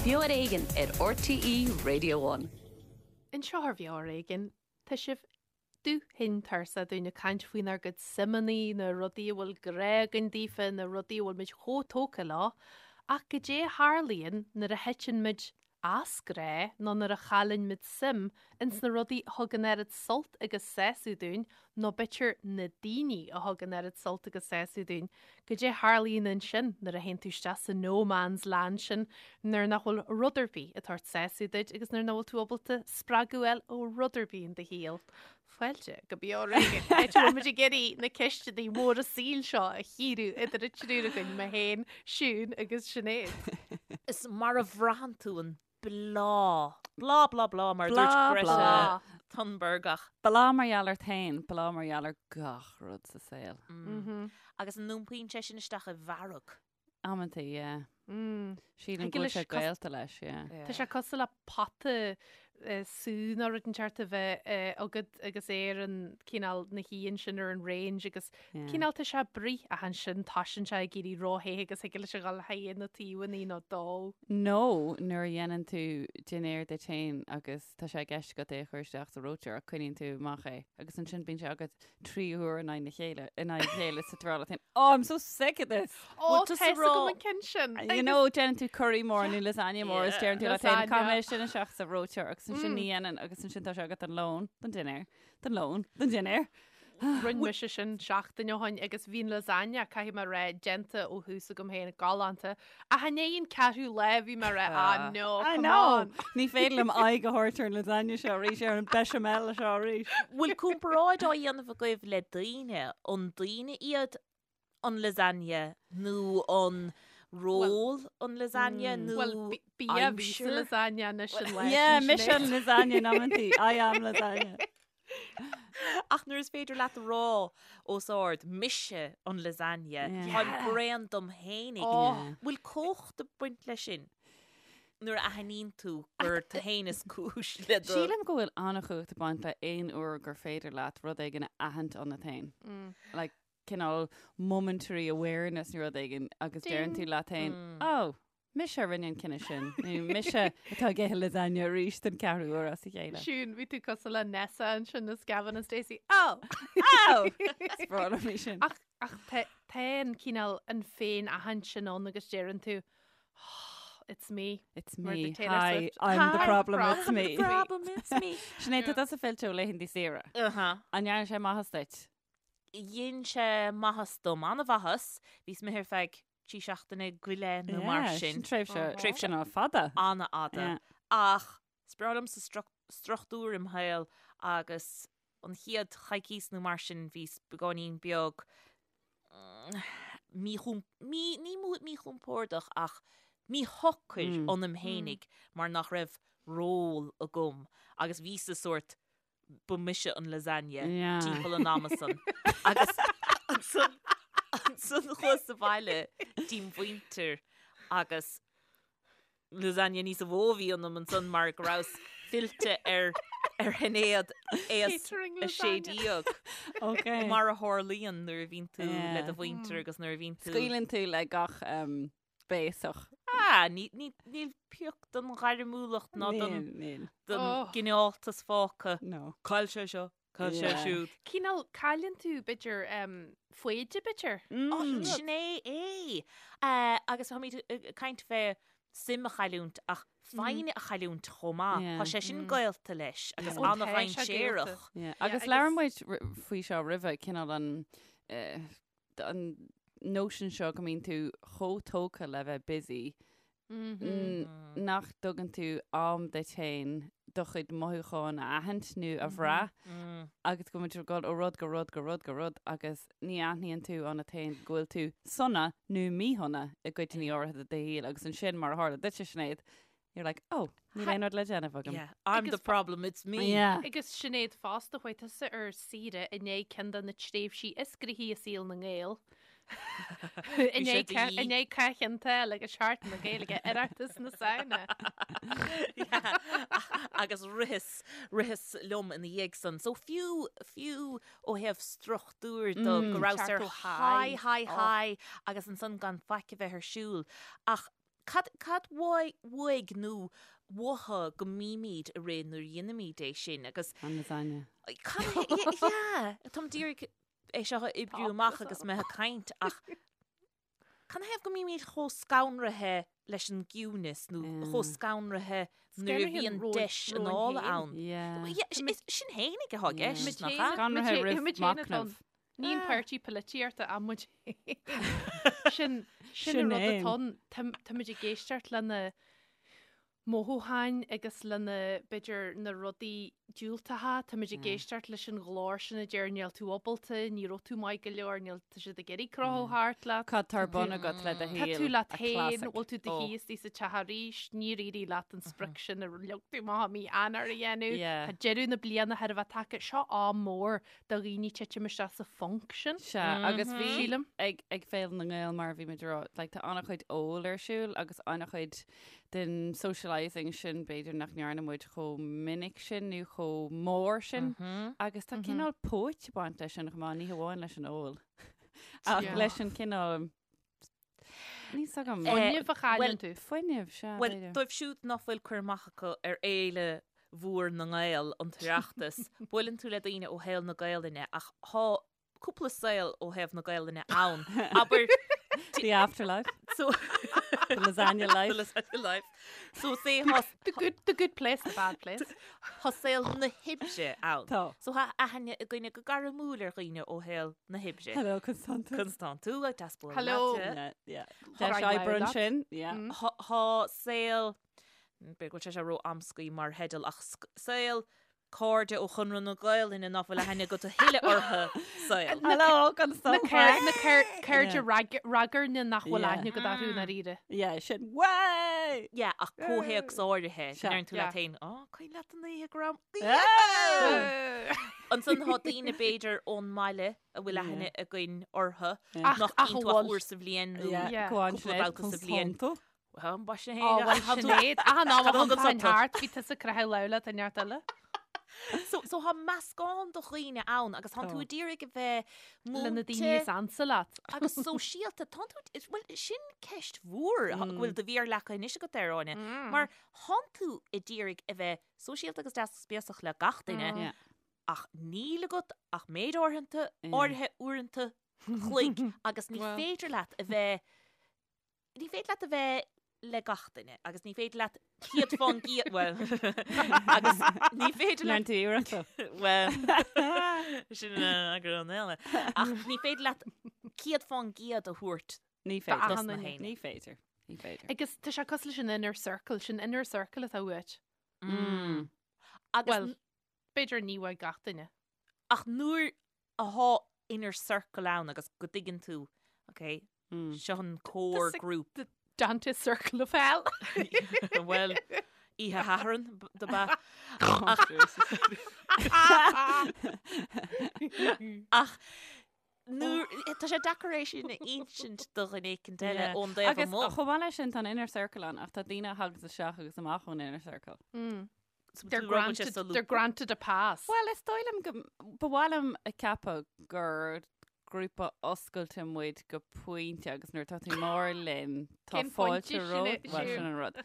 Beo ar Éigean ar RTÉ Radio One. Anseo ar Bheo ar Éigean, tá sibh dubh tinn tuirseach dúinn ag caint faoinár gcuid suimeanna, na rudaí a bhfuil grá againn daofa, na rudaí a bhfuil muid chomh tógtha leo, ach goidé a tharlaíonn nuair a thiteann muid as grá nó nuair a chailleann muid suim ins na rudaí a thug an oiread sult agus sásamh dúinn nó b'fhéidir na daoine a thug an oiread sult agus sásamh dúinn. Goidé a tharlaíonn ansin nuair a théann tú isteach sa no man's land sin nuair nach bhfuil rud ar bith ag tabhairt sásamh duit agus nuair nach bhfuil tú ábalta spreagadh a fháil ó rud ar bith in do shaol. Fáilte go Beo ar Éigean, áit a bhfuil muid ag iarraidh na ceisteanna móra saoil seo a chíoradh idir an triúr againn, mé féin, Siún agus Sinéad. Is mar a bhraitheann tú an bláth. Bláth, bláth, bláth, mar a dúirt Bláth, Greta bláth. Thunberg ach. Bláth mar gheall ort féin, bláth mar gheall ar gach rud sa saol. Agus an iompaíonn sé sin isteach i bhfearg? Amantaí, yeah. Sílim Thig go bhfuil leis sé cos- gaolta leis, yeah. Tá sé cosúil le pota sú nó rud inteacht a bheith agat agus é ar an cineál ina shuí ansin ar an range agus Yeah. cineál tá sé ag bruith ach ansin toisíonn sé ag éirí ró-the agus thig leis a dhul thigh na taobhanna nó dó. Nó nuair a dhéanann tú dinnéar duit féin agus tá sé i gceist agat é a chur isteach sa reoiteoir ach coinníonn tú amach é agus ansin bíonn sé agat trí huair in aghaidh na chéile, in aghaidh a chéile sa tráth féin. Oh, I'm so sick of this! Ó, Bhfuil tusa tá a fhios rá- agam an ceann sin. You know, déanann tú curry mór nó lasagna mór is deireann tú leat féin, Lasagna. caithfidh mé sin isteach sa reoiteoir agus ansin ní dhéanann agus ansin tá sé agat don lón, don dinnéar, don lón, don dinnéar. Rinne mise sin seachtain ó shin agus bhí an lasagna, caithfidh mé a rá, déanta ó thús agam féin, galánta. Ach i ndiaidh an ceathrú lá bhí mé ag rá, ah no, I come know! on. Ní féidir liom aghaidh a thabhairt ar an lasagna seo arís, ar an bechamel seo arís. Bhfuil comparáid á dhéanamh agaibh le daoine? An daoine iad an lasagna nó an ról an lasagna nó Bhuel, bia a bhí sa aimsir? lasagna anois an lá Yeah, sin, mise Sinéad. an lasagna in amantaí. I am lasagna. Ach nuair is féidir leat a rá os ard, mise an lasagna, Yeah. táim bréan dom fhéinig. Oh. Bhfuil cumhacht ag baint leis sin nuair a aithníonn tú gur tú fhéin is cúis le do... Sílim go bhfuil an-chumhacht ag baint le aon uair gur féidir leat rud éigin a aithint ionat féin. Like, cineál momentary awareness nó rud éigin agus deireann tú leat féin, oh, mise a rinne an cinneadh sin, nó mise atá ag ithe lasagna arís den ceathrú uair as a chéile. Siún, bhí tú cosúil le Nessa ansin as Gavin and Stacey. Oh! Oh! Is breá liom í sin. Ach, ach tá tá an cineál an féin-aithint sin ann agus deireann tú, oh, it's me. It's Mar me. the Taylor Hi, Swift. I'm the Hi, problem, problem, it's me. it's me. Problem, it's me. Sinéad, tá tusa fillte ó laethanta saoire. Uh-huh. An ndearna sé maitheas duit? Dhein sé maitheas dom, an-mhaitheas. Bhíos imithe ar feadh trí seachtaine go leith nó mar Yeah, sin. sin tréimhse, Uh-huh. tréimhse ná fada. An-fhada. Yeah. Ach is breá liomsa struchtúr im shaol agus an chéad choicís nó mar sin bhíos beagáinín beag míchom-, mí, ní míchompordach ach míshocair ionam fhéinig mar nach raibh ról agam agus bhíos-sa sórt ba mise an lasagne timpeall an ama san agus ansan ansan chuas abhaile dtí'n mhuintir agus lasagne níosa mhó a bhí ionam ansan mar go rabhas fillte ar ar Shinéad aos Catering a sé lasagne. déag. Ok. Mar a tharlaíonn nuair a bhíonn tú le do Yeah. mhuintir agus nuair a bhíonn tú Scaoileann tú le gach um, béasach. Ah, níl pioc den ghairmiúlacht ná den Níl, níl. den Oh. gcineáltas fágtha. No. Cá bhfuil sé seo, cá bhfuil sé Yeah. siúd. Cineál cailleann tú, b'fhéidir, um, foighde, b'fhéidir. Oh, Mm. sin é é. Eh, agus táimid ag caint fé suim a chailliúint ach foighne a chailliúint chomh maith. Yeah. Tá sé sin gaolta leis agus Ó, tá sé an-dhainséarach. gaolta. Yeah. Yeah, Agus agus- labhair muid r- faoi seo roimhe, cineál an eh, an notion seo go mbíonn tú chomh tógtha le bheith busy nach dtugann tú am duit féin do chuid mothúchán a aithint nó a bhrath agus go mbíonn tú ag dul ó rud go rud go rud go rud agus ní aithníonn tú ionat féin go bhfuil tú sona nó míshona i gcuideanna áirithe de do shaol agus ansin mar a tharla duitse Sinéad, You're like, oh, níl aon rud le déanamh agam. Yeah, I'm the Agus- problem, it's me. Yeah. Agus Sinéad fosta, chuaigh tusa ar saoire i ndiaidh ceann de na tréimhsí is gnoithí i saol na nGael. I Bhí sé ndiaidh de ca- dhíth. i ndiaidh Cath Chionn tSáile agus Seachtain na Gaeilge, Oireachtas na Samhna. Yeah. Agus ritheas, ritheas liom ina dhiaidh san. So fiú, fiú ó thaobh struchtúir de go rabhas ar Teacht ó high, high. high, high agus ansan gan faic a bheith ar siúl. Ach. Cad, cad uaidh nó uathu go mbímid ag rith nuair a dhéanaimid é sin agus. An lasagne. Cad, yeah, táim d'iarraidh é seo a oibriú amach agus mé ag caint ach canathaobh go mbímid chomh scanraithe leis an gciúnas nó chomh scanraithe nuair a bhíonn deis anála ann. Sin fhéinig atá i gceist, nach ea? Scanraithe roimh machnamh. Ní an páirtí polaitíochta ach muid féin. Sin sin an rud atá ann. Táimid ag éisteacht lena mothúcháin agus lena, b'fhéidir, na rudaí diúltacha, táimid ag éisteacht leis an ghlór sin a deir níl tú ábalta, ní raibh tú maith go leor, níl, tá siad ag iarraidh croitheadh thart leat. Cad tá ar bun agat le do shaol? Tá tú leat féin, bhfuil tú do shuí istigh sa teach arís, níor éirigh leat an sprioc sin a leag tú amach i mí Eanáir a dhéanamh, tá deireadh na bliana chóir a bheith tagtha, seo am mór do dhaoine titim isteach sa phonc sin. Sea, agus bhí Sílim. ag ag Féile na nGael mar a bhí muid ag rá, like, tá an-chuid óil ar siúl agus an-chuid den socialising sin b'fhéidir nach ndearna muid chomh minic sin nó chomh mór sin agus tá cineál póit ag baint leis sin chomh maith, ní hamháin leis an ól ach Yeah. leis an cineál Níl 's agam. Fuinneamh a chailleann tú. Fuinneamh, sea, Bhuel, b'fhéidir. dóibh siúd nach bhfuil cur amach acu ar fhéile mhór na nGael, an tOireachtas, buaileann tú le daoine ó shaol na Gaelainne ach thá cúpla saol ó thaobh na Gaelainne ann. Abair, The afterlife. so, The lasagna life. The lasagna life. So say thá, The good, the good place, the bad place. thá saol na hoibre ann. Tá. So thá aithne againne go gairmiúil ar dhaoine ó shaol na hoibre. Hello, Constantú. Constantú, ag deas bualadh Hello. leat. Yeah, yeah. Tá Deis rang oibre leat. ansin. Yeah. Thá thá saol, b'fhéidir go bhfuil sé seo ró-amscaí mar theideal ach saol cairde ó Chonradh na Gaelainne nach bhfuil aithne agat a thuilleadh orthu saol. Hello, Constantú. Na cairde ragairne nach bhfuil aithne agat orthu i ndáiríre. Yeah, sin way! Yeah, ach comhthéacs áirithe, Sea. ndeireann tú Yeah. leat féin, Á, cuimhin leat an oíche go raibh Yeah! Ansan tá daoine b'fhéidir ón mbaile a bhfuil aithne againn orthu Ach- nach ach gcíonn a tú ach bhfuil. uair sa bhliain nó Yeah, Yeah. go on, Cúpla Sinéad, babhta sa bhliain. Constantú. Well, ba sin Ó, é. bhuel, Sinéad, achan am a Cad a thugann thagann tú? thart, bhí tusa ag croitheadh lámh leat i neart eile. So, so tá meascán de dhaoine ann agus tánn tú Tá. ag iarraidh a bheith Le na daoine múinte is ansa leat. agus sóisialta. Tánn tú, is- bhuel, sin ceist mhór go bhfuil do mhéar leagtha anois agat air, Áine. Mar tánn tú ag iarraidh a bheith sóisialta agus deas agus béasach le gach duine, Yeah. ach níl agat ach méid áirithe, Yeah. áirithe uaireanta chloig agus ní Well. féidir leat a bheith Ní féidir leat a bheith le gach duine agus ní féidir leat 100% bhuel agus ní féidir leat Lean tú iarracht. bhuel sin eagrán eile ach ní féidir leat 100% a thabhairt Ní D'achan féidir. dos na duine. héinne. Ní féidir. Ní féidir. Agus tá sé cosúil leis an inner circle, sin inner circle atá uait. Mm. Agus Well, b'fhéidir ní uaidh gach duine. ach nuair athá inner circle ann agus go dtuigeann tú, ok, Mm. seo an core The group. The Dante Circle of Hell. Bhuel, oíche Shathairn do ba. Ach nuair tá sé deacair é sin a insint do dhuine éicint eile Yeah. ón dtaobh Agus amuigh. chomh maith leis sin tá an inner circle ann ach tá daoine a thagas isteach agus amach ón inner circle. Mm. So They're tú rud sé granted, solúbtha. they're granted a pass. Well, is dóigh liom go, ba mhaith liom a ceapadh gur grúpa oscailte muid go pointe agus nuair atá tú mór linn tá Cén fáilte pointe sin romhat, é, bhuel, siúd? sin an rud.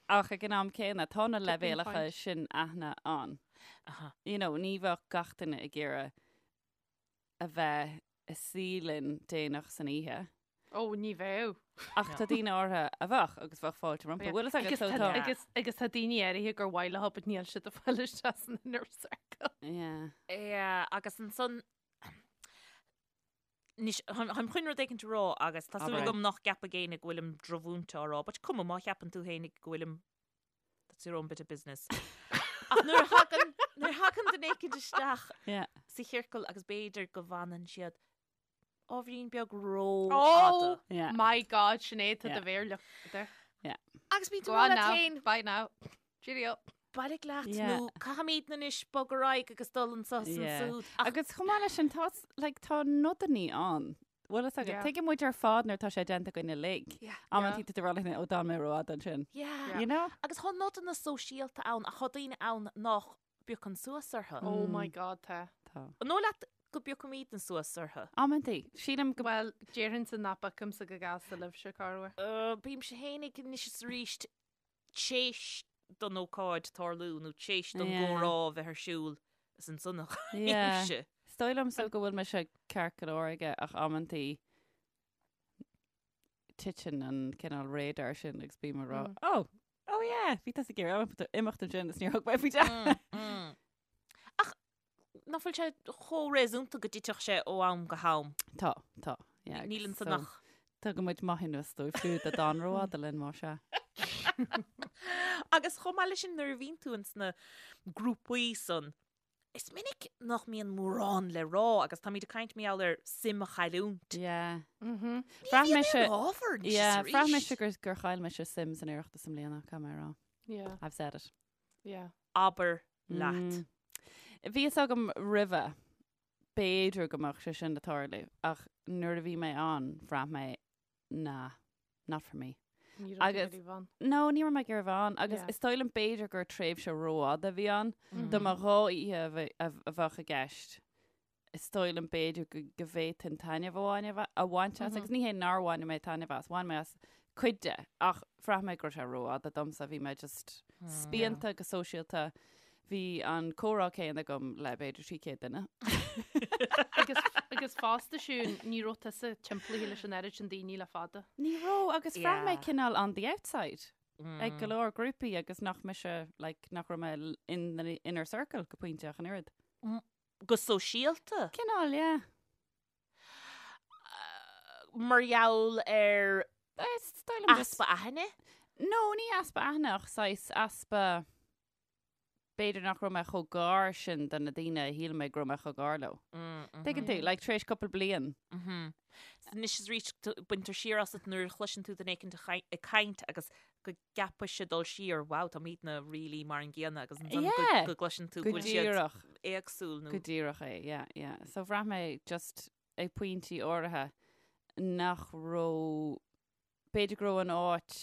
Ach ag an am céanna tá na Tipping leibhéalacha point. sin aithne ann. Aha. You know, ní bheadh gach duine ag iarraidh a bheith ag suí linn déanach san oíche. Ó, ní bheadh. Ach tá daoine áirithe a bheadh agus bheadh fáilte rompu. Bhfuil fhios agat Agus so tá, tá. agus, agus tá daoine áirithe gur mhaith leo but níl siad ag fáil isteach san inner circle. Yeah. Yeah, agus ansan Anois, táim chun rud éicint a rá agus tá súil Abair. agam nach gceapfaidh éinne go bhfuilim drochmhúinte á rá, but cuma má cheapann tú féinig go bhfuilim that's your own bit of business. Ach nuair a thagann nuair a thagann duine éicint isteach Yeah. sa chiorcal agus b'fhéidir go bhfanann siad ábhairín beag rófhada. Oh Yeah. my God, Sinéad, tá Yeah. do mhéar leagtha. Agus bíonn tú Go rá on leat now. féin, Bye now. Cheerio. bailigh leat Yeah. nó caithfimid anois bog ar aghaidh agus dul anso is Yeah. ansúd. Ach Agus chomh maith leis sin tá like, tá nodanna ann. Bhfuil fhios agat, Yeah. tuigeann muid ar fad nuair atá sé déanta againn uilig. Yeah. Amantaí tá tú ag rá leat féin, ó d'fhan mé rófhada ansin. Yeah. You know? Agus tá nodanna sóisialta ann ach tá daoine ann nach bpiocann suas orthu. Oh my God, tá. Tá. An dóigh leat? go bpiocaimidne suas orthu. Amantaí. Sílim go. Bhuel, déarfainnse nach bpiocfaimse go gasta libhse, corruair. Bímse fhéinig anois is arís t'éis don ócáid tarlú nó t'éis don gcomhrá a bheith ar siúl is ansan a bhímse. Is dóigh liomsa go bhfuil mise ceart go leor aige ach amantaí titeann an cineál radar sin agus bím ag rá, oh, oh yeah, bhí tusa ag iarraidh imeacht ansin is níor thug mé faoi deara. Ach nach bhfuil sé chomh réasúnta go dtitfeadh sé ó am go ham? Tá, tá. Yeah, Níl ansan ach. Tugann muid maithiúnas dóibh siúd a d'fhan rófhada linn, más ea. Agus chomh maith leis sin, nuair a bhíonn tú ins na grúpaí san, is minic nach mbíonn mórán le rá agus táimid ag caint mar gheall ar suim a chailliúint. Yeah. Ní Bhraith mise, ábhar anois is yeah, bhraith mise gur, gur chaill mise suim san Oireachtas i mbliana, caithfidh mé a rá. Yeah. I've said it. Yeah. Abair leat. Bhí fhios agam roimhe, b'fhéidir go mbeadh sé sin ag tarlú, ach nuair a bhí mé ann, bhraith mé, nah, not for me. Ní raibh tú ag iarraidh bheith ann. No, ní raibh mé ag iarraidh bheith ann, agus is dóigh liom b'fhéidir gur tréimhse rófhada a bhí ann, dá mba dha oíche a bheadh i gceist. is dóigh liom b'fhéidir go go bhféadfainn taitneamh a bhain a bhaint as agus ní hé nár bhain mé taitneamh as, bhain mé as cuid de ach bhraith mé go raibh sé rófhada domsa, bhí mé just spíonta go sóisialta, bhí an comhrá céanna agam le b'fhéidir 300 duine. Agus agus fosta Siún, ní raibh tusa timpeallaithe leis an oiread sin daoine le fada. Ní raibh agus bhraith mé cineál on the outside ag go leor grúpaí agus nach mise like nach raibh mé in the inner circle go pointe ach an oiread. Go sóisialta? Cineál, yeah. Mar gheall ar easpa aithne? No, ní easpa aithne ach saghas easpa, b'fhéidir nach raibh mé chomh gar sin do na daoine a shíl mé go raibh mé chomh gar leo. Tuigeann tú, like tar éis cúpla bliain. Anois is arís baintear siar asat nuair a chloiseann tú duine éicint ag caint agus go gceapfainnse dul siar, wow, táimidne really mar an gcéanna agus ansan Yeah. go gcloiseann tú Go go bhfuil siad díreach. éagsúil nó Go díreach é, yeah, yeah. So bhraith mé just ag pointí áirithe nach raibh, b'fhéidir go raibh an áit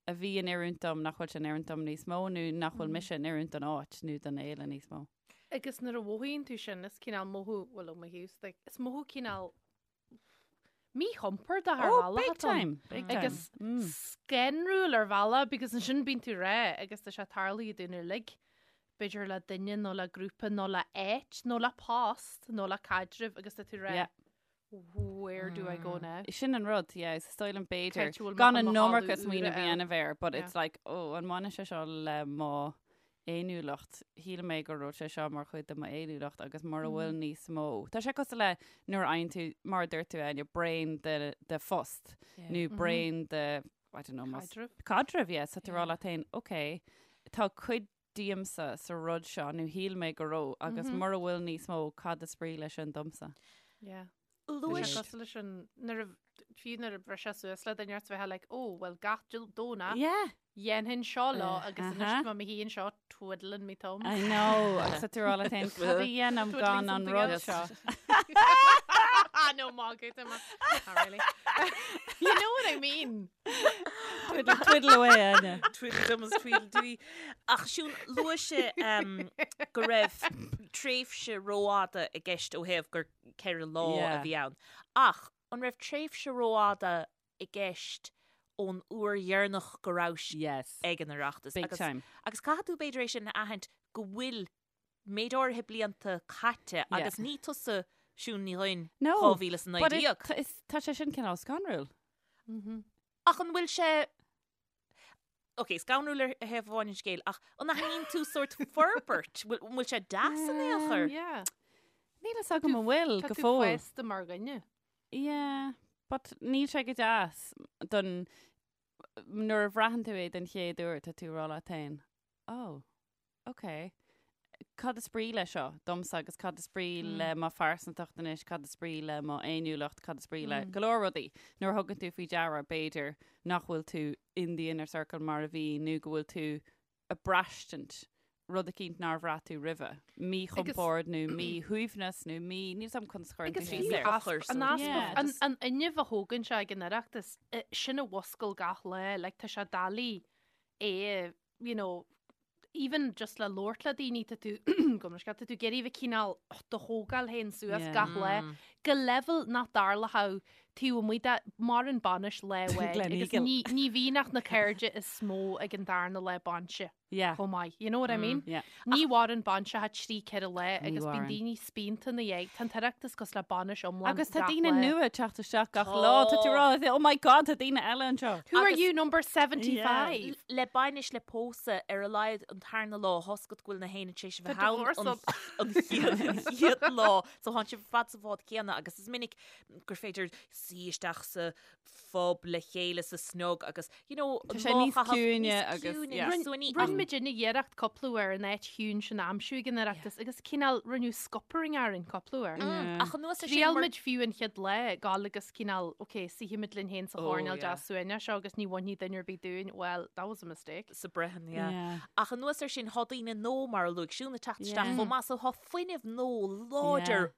a bhí in oiriúint dom nach bhfuil sé in oiriúint dom níos mó nó nach bhfuil mise in oiriúint don áit nó don fhéile níos mó. Agus nuair a mhothaíonn tú sin, is cineál mothú, bhuel ó mo thaobhsa de, is mothú cineál míchompordach ar Oh, bhealach big atá ann. time, big time. Agus scanrúil ar bhealach because ansin bíonn tú rá agus tá sé tarlaithe dúinn uilig, b'fhéidir le duine nó le grúpa nó le áit nó le post nó le caidreamh agus tá tú rá Yeah. where do I go now? Sin an rud, yeah, is dóigh liom b'fhéidir Cé bhfuil gan mo an mo iomarca thalamh smaoineamh a úra ann. dhéanamh air, but Yeah. it's like, oh, an mbaineann sé seo le mo fhéiniúlacht. Shíl mé go raibh sé seo mar chuid de m'fhéiniúlacht agus mura bhfuil níos mó. Tá sé cosúil le nuair a fhaigheann tú, mar a dúirt tú, Áine, braon de, de phost nó braon de, I don't know, más- Caidreamh. Caidreamh, yeah. So tú ag rá leat féin, ok, tá cuid díomsa sa rud seo nó shíl mé go raibh agus mura bhfuil níos mó, cad is brí leis sin domsa? Yeah. Tá Luaigh sé cosúil leis an, nuair a, fiú nuair a bhriseadh suas le duine ort bheith like, oh, well gach Domhnach, Yeah. dhéanfainn seo leo agus anois Uh-huh. tá mé i mo shuí anseo twiddling me thumbs. I know, agus tá tú ag rá leat féin, cad a dhéanaim Twiddling gan an something rud else. seo? No, magadh, tá mé. Not really. You know what I mean. Twiddle, twiddle away, Áine. Twiddle thumbs, twiddle dee. Ach Siún, luaigh sé um, go raibh tréimhse rófhada i gceist ó thaobh gur 4 lá a Yeah. bhí ann. Ach an raibh tréimhse rófhada i gceist ón uair dheireanach go rabhais Yes. ag an Oireachtas? Big Agus, time. agus caithfidh tú b'fhéidir é sin a aithint go bhfuil méid áirithe blianta caite Yeah. agus ní tusa Siún Ní Dhuinn No, But it, 2019. tá- is- tá sé sin cineál scanrúil. Ach an bhfuil sé Ok, scanrúil ar thaobh amháin an scéil, ach an aithníonn tú sórt forbairt? Bhfuil an bhfuil sé deas in aon chor? Yeah. Níl fhios agam an bhfuil Tá go tú fóill. fásta mar dhuine. Yeah, but níl sé go deas don nuair a bhraitheann tú é den chéad uair tá tú ag rá leat féin, oh, ok, cad is brí le seo domsa agus cad is brí le mo phearsantacht anois, cad is brí le mo fhéiniúlacht, cad is brí le go leor rudaí. Nuair a thugann tú faoi deara b'fhéidir nach bhfuil tú in the inner circle mar a bhí nó go bhfuil tú ag braistint rud eicínt nár bhraith tú roimhe, míchompord nó míshuaimhneas nó mí, níl 's agam conas a chuireann tú Agus síos fiú air. easpa, an easpa, Yeah, an, just- an fhuinneamh a thógann sé ag an Oireachtas, eh, sin a mhuscail gach lá, like tá sé doiligh é, you know, Even just le labhairt le daoine tá tú go tá tú ag iarraidh a bheith cineál do thógáil féin suas gach lá go leibhéal nach dtarlódh taobh amuigh de maireann bainis lá amháin agus ní ní bhíonn ach na cairde is mó ag an darna lá bainse. Yeah. Chomh maith. You know what I mean? Yeah. Ní mhaireann bainseacha 3 4 lá Ní agus bíonn mhaireann. daoine spíonta ina dhiaidh. Tá an tOireachtas cosúil le bainis iomlán Agus tá gach daoine lá. nua ag teacht isteach gach lá. Tá tú ag rá, oh my god, tá daoine eile anseo. Who are Agus- you, number 75? Le bainis le pósadh ar a laghad an tarna lá tá 'fhios agat go bhfuil na héinne tar éis a Tá bheith ann divorce an up. an chéad an chéad lá. So tánn sibh ar fad sa bhád céanna agus is minic gur féidir suí isteach sa phub le chéile sa snog agus you know Tá sé níos ciúine agus, yeah. Rinne muidinne iarracht cúpla uair an áit chiúin sin a aimsiú ag an Oireachtas agus cineál rinneadh scuppering orainn cúpla uair. Ach anuas air sin Thriail muid fiú an chéad lá gabháil agus cineál ok suífimid linn féin sa Oh, choirnéal yeah. deas suaimhneach seo agus ní bhainfidh duine ar bith dúinn, well that was a mistake. sa Brehon, yeah. Yeah. Ach anuas air sin tá daoine nua mar a luaigh Siún ag teacht isteach Yeah. chomh maith so tá fuinneamh nua láidir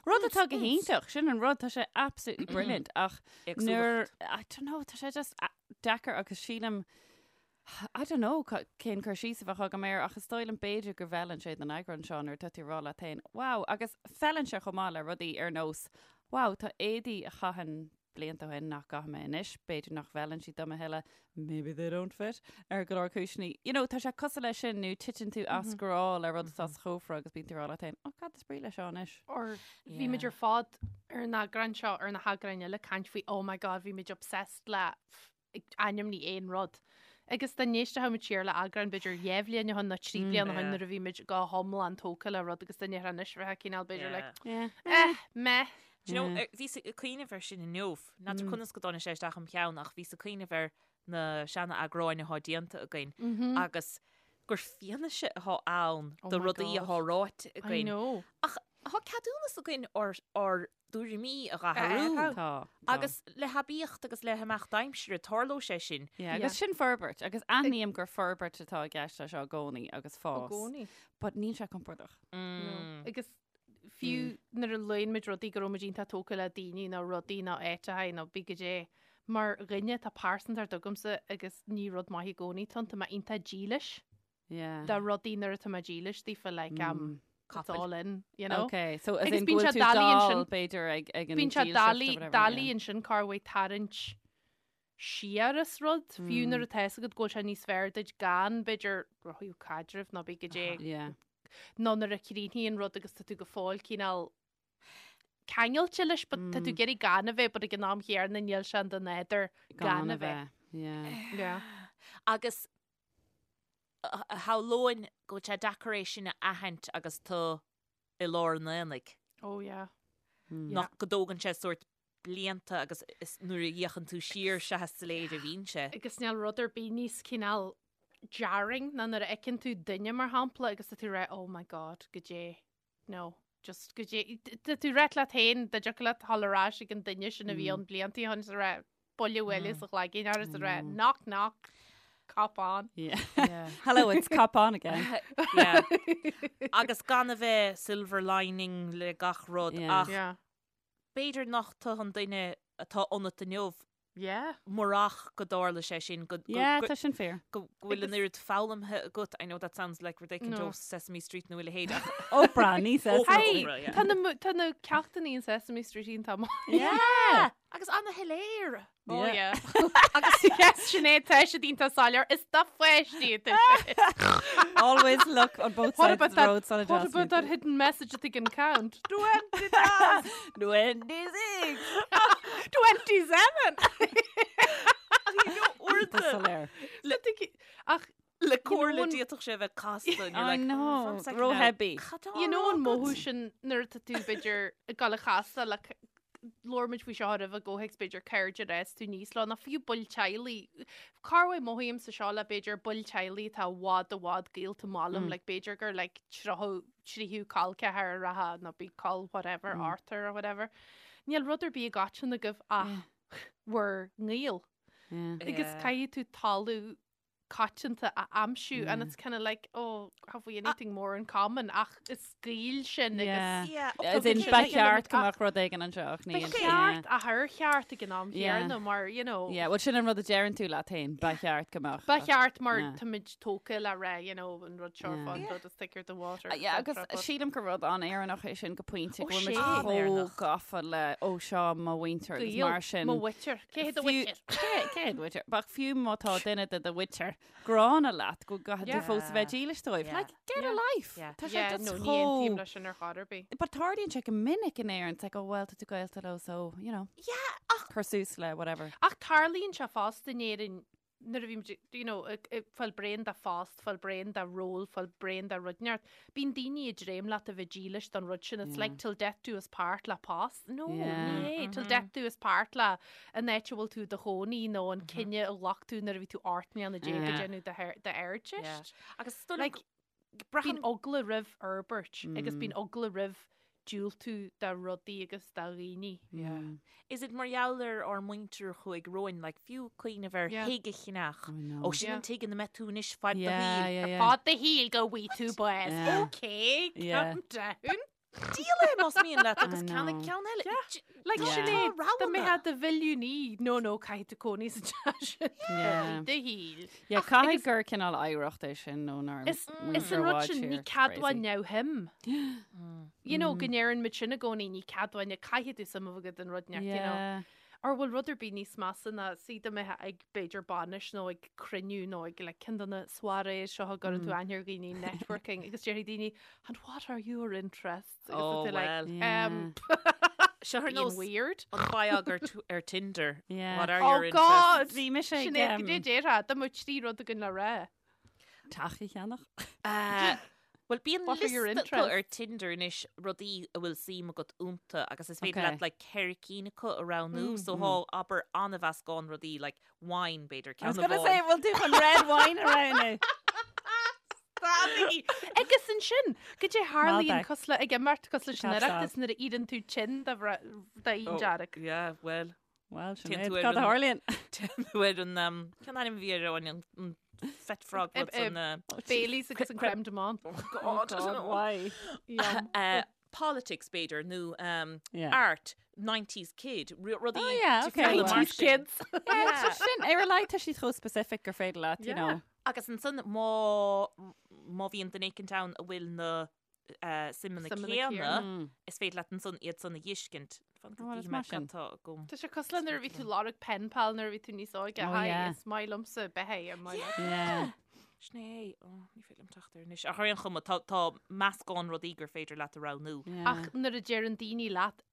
Rud atá go hiontach, sin an rud, tá sé absolutely brilliant ach nuair, I don't know, tá sé just deacair agus sílim, I don't know cén cur síos a bheadh agam air ach is dóigh liom b'fhéidir go bhfeileann sé don eagrán seo nuair atá tú ag rá leat féin, wow, agus feileann sé chomh maith le rudaí ar nós, wow, tá éadaí a chaithinn blianta ó shin nach gcaithfidh mé anois, b'fhéidir nach bhfeileann siad dom a thuilleadh, maybe they don't fit, ar go leor cúiseanna. You know, tá sé cosúil leis sin nó titeann tú as grá le rud atá sa chófra agus bíonn tú ag rá leat féin, oh cad is brí leis seo anois? Or bhí muid ar fad ar an eagrán seo ar na heagráin eile ag caint faoi oh my god bhí muid obsessed le ainmnigh aon rud. Agus dá n-éistfeadh muid siar le eagrán b'fhéidir 2 bhliain ó shin nó 3 bliana ó shin nuair a bhí muid go hiomlán tógtha le rud agus dá ndéarfá anois bheifeá cineál b'fhéidir like Yeah. eh meh. Do you know, bhíos ag cuimhneamh air sin inniu, n'fheadar conas go dtáinig sé isteach im cheann ach bhíos ag cuimhneamh ar na seana-eagráin atá déanta againn agus gur fianaise atá ann Oh do my rudaí God. atá ráite I againn. know. Ach tá ceadúnas againn ár ár dtuairimí a dh'athrú. Tá. Tá. Agus le haibíocht agus le himeacht aimsire tarlóidh sé sin. Yeah, agus sin forbairt, agus aithním gur forbairt atá i gceist leis seo i gcónaí agus fás. I gcónaí. But níl sé compordach. No. Agus fiú nuair a luann muid rudaí go raibh muid iontach tógtha le daoine nó rudaí nó áiteacha nó bí goidé, mar dhuine tá pearsantacht agamsa agus ní rud maith i gcónaí atá ann, tá mé iontach dílis Yeah. do rudaí nuair atá mé dílis daofa like um, it's all in, you know? Okay, so as Agus in go bíonn bhfuil sé tú doiligh dall ansin. b'fhéidir ag ag an Bíonn sé dílseacht or doiligh whatever, doiligh yeah. ansin corruair tarraingt siar as rud, fiú nuair atá fhios agat go bhfuil sé níos fearr duit gan b'fhéidir ó thaobh caidrimh nó bí goidé Yeah. nó nuair a chríochnaíonn rud agus tá tú go fóill cineál ceangailte leis but tá tú ag iarraidh gan a bheith but ag an am chéanna níl sé in do nádúr gan a bheith. Yeah. Yeah. Agus shamhlóinn go bhfuil sé deacair é sin a aithint agus tú i lár an aonaigh. Oh yeah. Nach go dtógann sé sórt blianta agus is nuair a fhéachann tú siar sea is soiléir a bhíonn sé. Agus níl rud ar bith níos cineál jarring ná nuair a fheiceann tú duine mar shampla agus tá tú ag rá oh my god goidé no just goidé tá tú ag rá leat féin dá dtiocfadh leat dhul ar ais ag an duine sin a bhí ann blianta ó shin is a rá buille bhuille sa chloigeann air is a rá knock knock cop on. Yeah. Hello, it's cop on again. Yeah. Agus gan a bheith silver lining le gach rud Yeah. ach Yeah. b'fhéidir nach tú an duine atá ionat inniu Yeah. murach go dtarla sé sin go Yeah, tá sin fíor. go bhfuil an oiread foghlamtha agat. I know that sounds like rud éicint No. ó Sesame Street nó a leithéid ach Oprah, ní Sesame Oprah. Street. Hey, yeah. tá na mu- tá na ceachtanna in Sesame Street iontach maith. Yeah! Agus ana-shoiléir. Oh Yeah. yeah. Agus yes, Sinéad tá siad iontach soiléir is do pháistí atá sé. Always look on both What sides about of the that, road, son what about that hidden message that they can count? 20, 26! 27! Tá soiléir. Le Ach, Le comhairle know an- d'fhéadfadh sé a bheith casta and you're I like, know, "Oh, one second now, ró-heavy. cad tá you know á an rá mothú agat?" sin nuair atá tú b'fhéidir ag dul a chasadh le labhair muid faoi seo roimhe i gcomhthéacs b'fhéidir cairde ar fhás tú aníos leo, nó fiú baill teaghlaigh. Corruair mothaímse seo le b'fhéidir baill teaghlaigh atá i bhfad i bhfad gaolta maith liom, like b'fhéidir gur like tríocha tríú col ceathar a rachadh nó bí col whatever, Arthur or whatever. Níl rud ar bith i gcoiteann agaibh ach bhur ngaol. Yeah. Agus Yeah. caithfidh tú toiliú. coitianta a aimsiú and it's kind of like oh have we anything more in common ach is Gaeil sinn agus Yeah, As in ba cheart go mbeadh rud éigin anseo ach níl. Ba cheart ach ar cheart ag an am chéanna mar you know. Yeah, well sin an rud a deireann tú leat féin, ba cheart go mbeadh. Ba cheart mar táimid tógtha le rá you know an rud seo fán rud is thicker than water. Yeah, agus sílim gur rud an-Éireannach é sin go pointe go bhfuil muid chomh gafa le ó seo mo mhuintir agus mar sin. Mo mhuintir. Cé hiad do mhuintir? Cé hiad do mhuintir? Ach fiú má tá duine de do mhuintir gránna leat go gcaithfidh tú fós a bheith dílis dóibh. Like, get a life! Tá sé just chomh... Ní aontaím leis sin ar chor ar bith. But tarlaíonn sé go minic in Éirinn, it's like, oh well, tá tú gaolta leo, so, you know. Yeah, ach... Cuir suas le whatever. Ach tarlaíonn sé fosta in Éirinn nuair a bhímid, you know, ag fáil bréan de phost, fáil bréan de ról, fáil bréan de rud inteacht, bíonn daoine ag dréim leat a bheith dílis don rud sin. It's like till death do us part le post. No, ní hé. Till death do us part le an áit a bhfuil tú i do chónaí nó an cinneadh a ghlac tú nuair a bhí tú 18 mbliana ag déanamh d'Ardteist. Agus is dóigh liom Like, bíonn eagla roimh fhorbairt agus bíonn eagla roimh diúltú do rudaí agus do dhaoine. Is it mar gheall ar ár muintir a chuaigh romhainn, like, fiú cuimhneamh ar thigh a cheannach. Ó, sin an tigh ina mbeidh tú anois fad do shaoil. Ar fad do shaoil go bhfaighidh tú bás. Ok, calm down. Díol é más mian leat agus ceannaigh ceann eile. Like sin é, dá mbeifeá i do mhilliúnaí, no no, caithfidh tú cónaí sa teach sin do shaol. Yeah, caithfidh gur cineál oidhreacht é sin ónár Is is an rud sin, ní ceadmhach neamhshuim. You know, go ndeireann muid sin i gcónaí, ní ceadmhach, caithfidh tú suim a bheith agat in rud inteacht, you know. Ar bhfuil rud ar bith níos measa ná suí dá mbeifeá ag b'fhéidir bainis nó ag cruinniú nó ag like ceann de na soirées seo a gcuireann tú aithne ar dhaoine networking agus déarfaidh daoine and what are your interests? Agus Oh, tá tú like, well. um, Seo ar being nós weird. an biog ar, ar Tinder. Yeah. What are Oh your God! interests? Bhí mise ag, Sin é, um, go dté déarfá, dá mbeadh 3 rud againn le rá. Teach a cheannach. Uh, Bhuel, bíonn What are your liosta acu ar interests? Tinder anois rudaí a bhfuil suim agat iontu agus is féidir Okay. leat like ceithre cinn acu a roghnú so thá abair an-mheascán rudaí like wine b'fhéidir I was ceann gonna say, amháin. bhfuil tú chun red wine a roghnú? Stadaigí! Agus ansin, goidé tharlaíonn Malbec. cosúil le ag imeacht cosúil leis an Cab Oireachtas Sauv. nuair a iarrann tú tinn de fhíon Oh, dearg. Yeah, well. Well, Téann Sinéad, tú ar cad a an- tharlaíonn? Téann tú ar an, um, cén ainm a bhí ar an, an, an fet frog rud san, uh, Baileys agus an crème de menthe. God, I don't know. why? Yum. Uh, politics b'fhéidir nó um, Yeah. art 90s kid ru- rudaí Oh, yeah, okay. difriúla mar 90s sin. kids. Yeah, sin ar a laghad tá siad chomh specific gur féidir leat, you Yeah. know. Agus ansan má má bhíonn duine éicint ann a bhfuil na suimeanna céanna, is féidir leat ansan iad san a dh'fheiscint. Fan go Ó, is dtí mé maith sin. cad tá agam. Tá sé cosúil le nuair a bhí tú lorg pen pal nuair a bhí tú níos óige. Oh, Hi, yeah. is maith liomsa bheith é, maith leat. Yeah. Sin é, ó, ní féidir liom teacht air anois. Ach ar aon chuma, tá, tá meascán rudaí gur féidir leat a roghnú. Yeah. Ach nuair a deireann daoine leat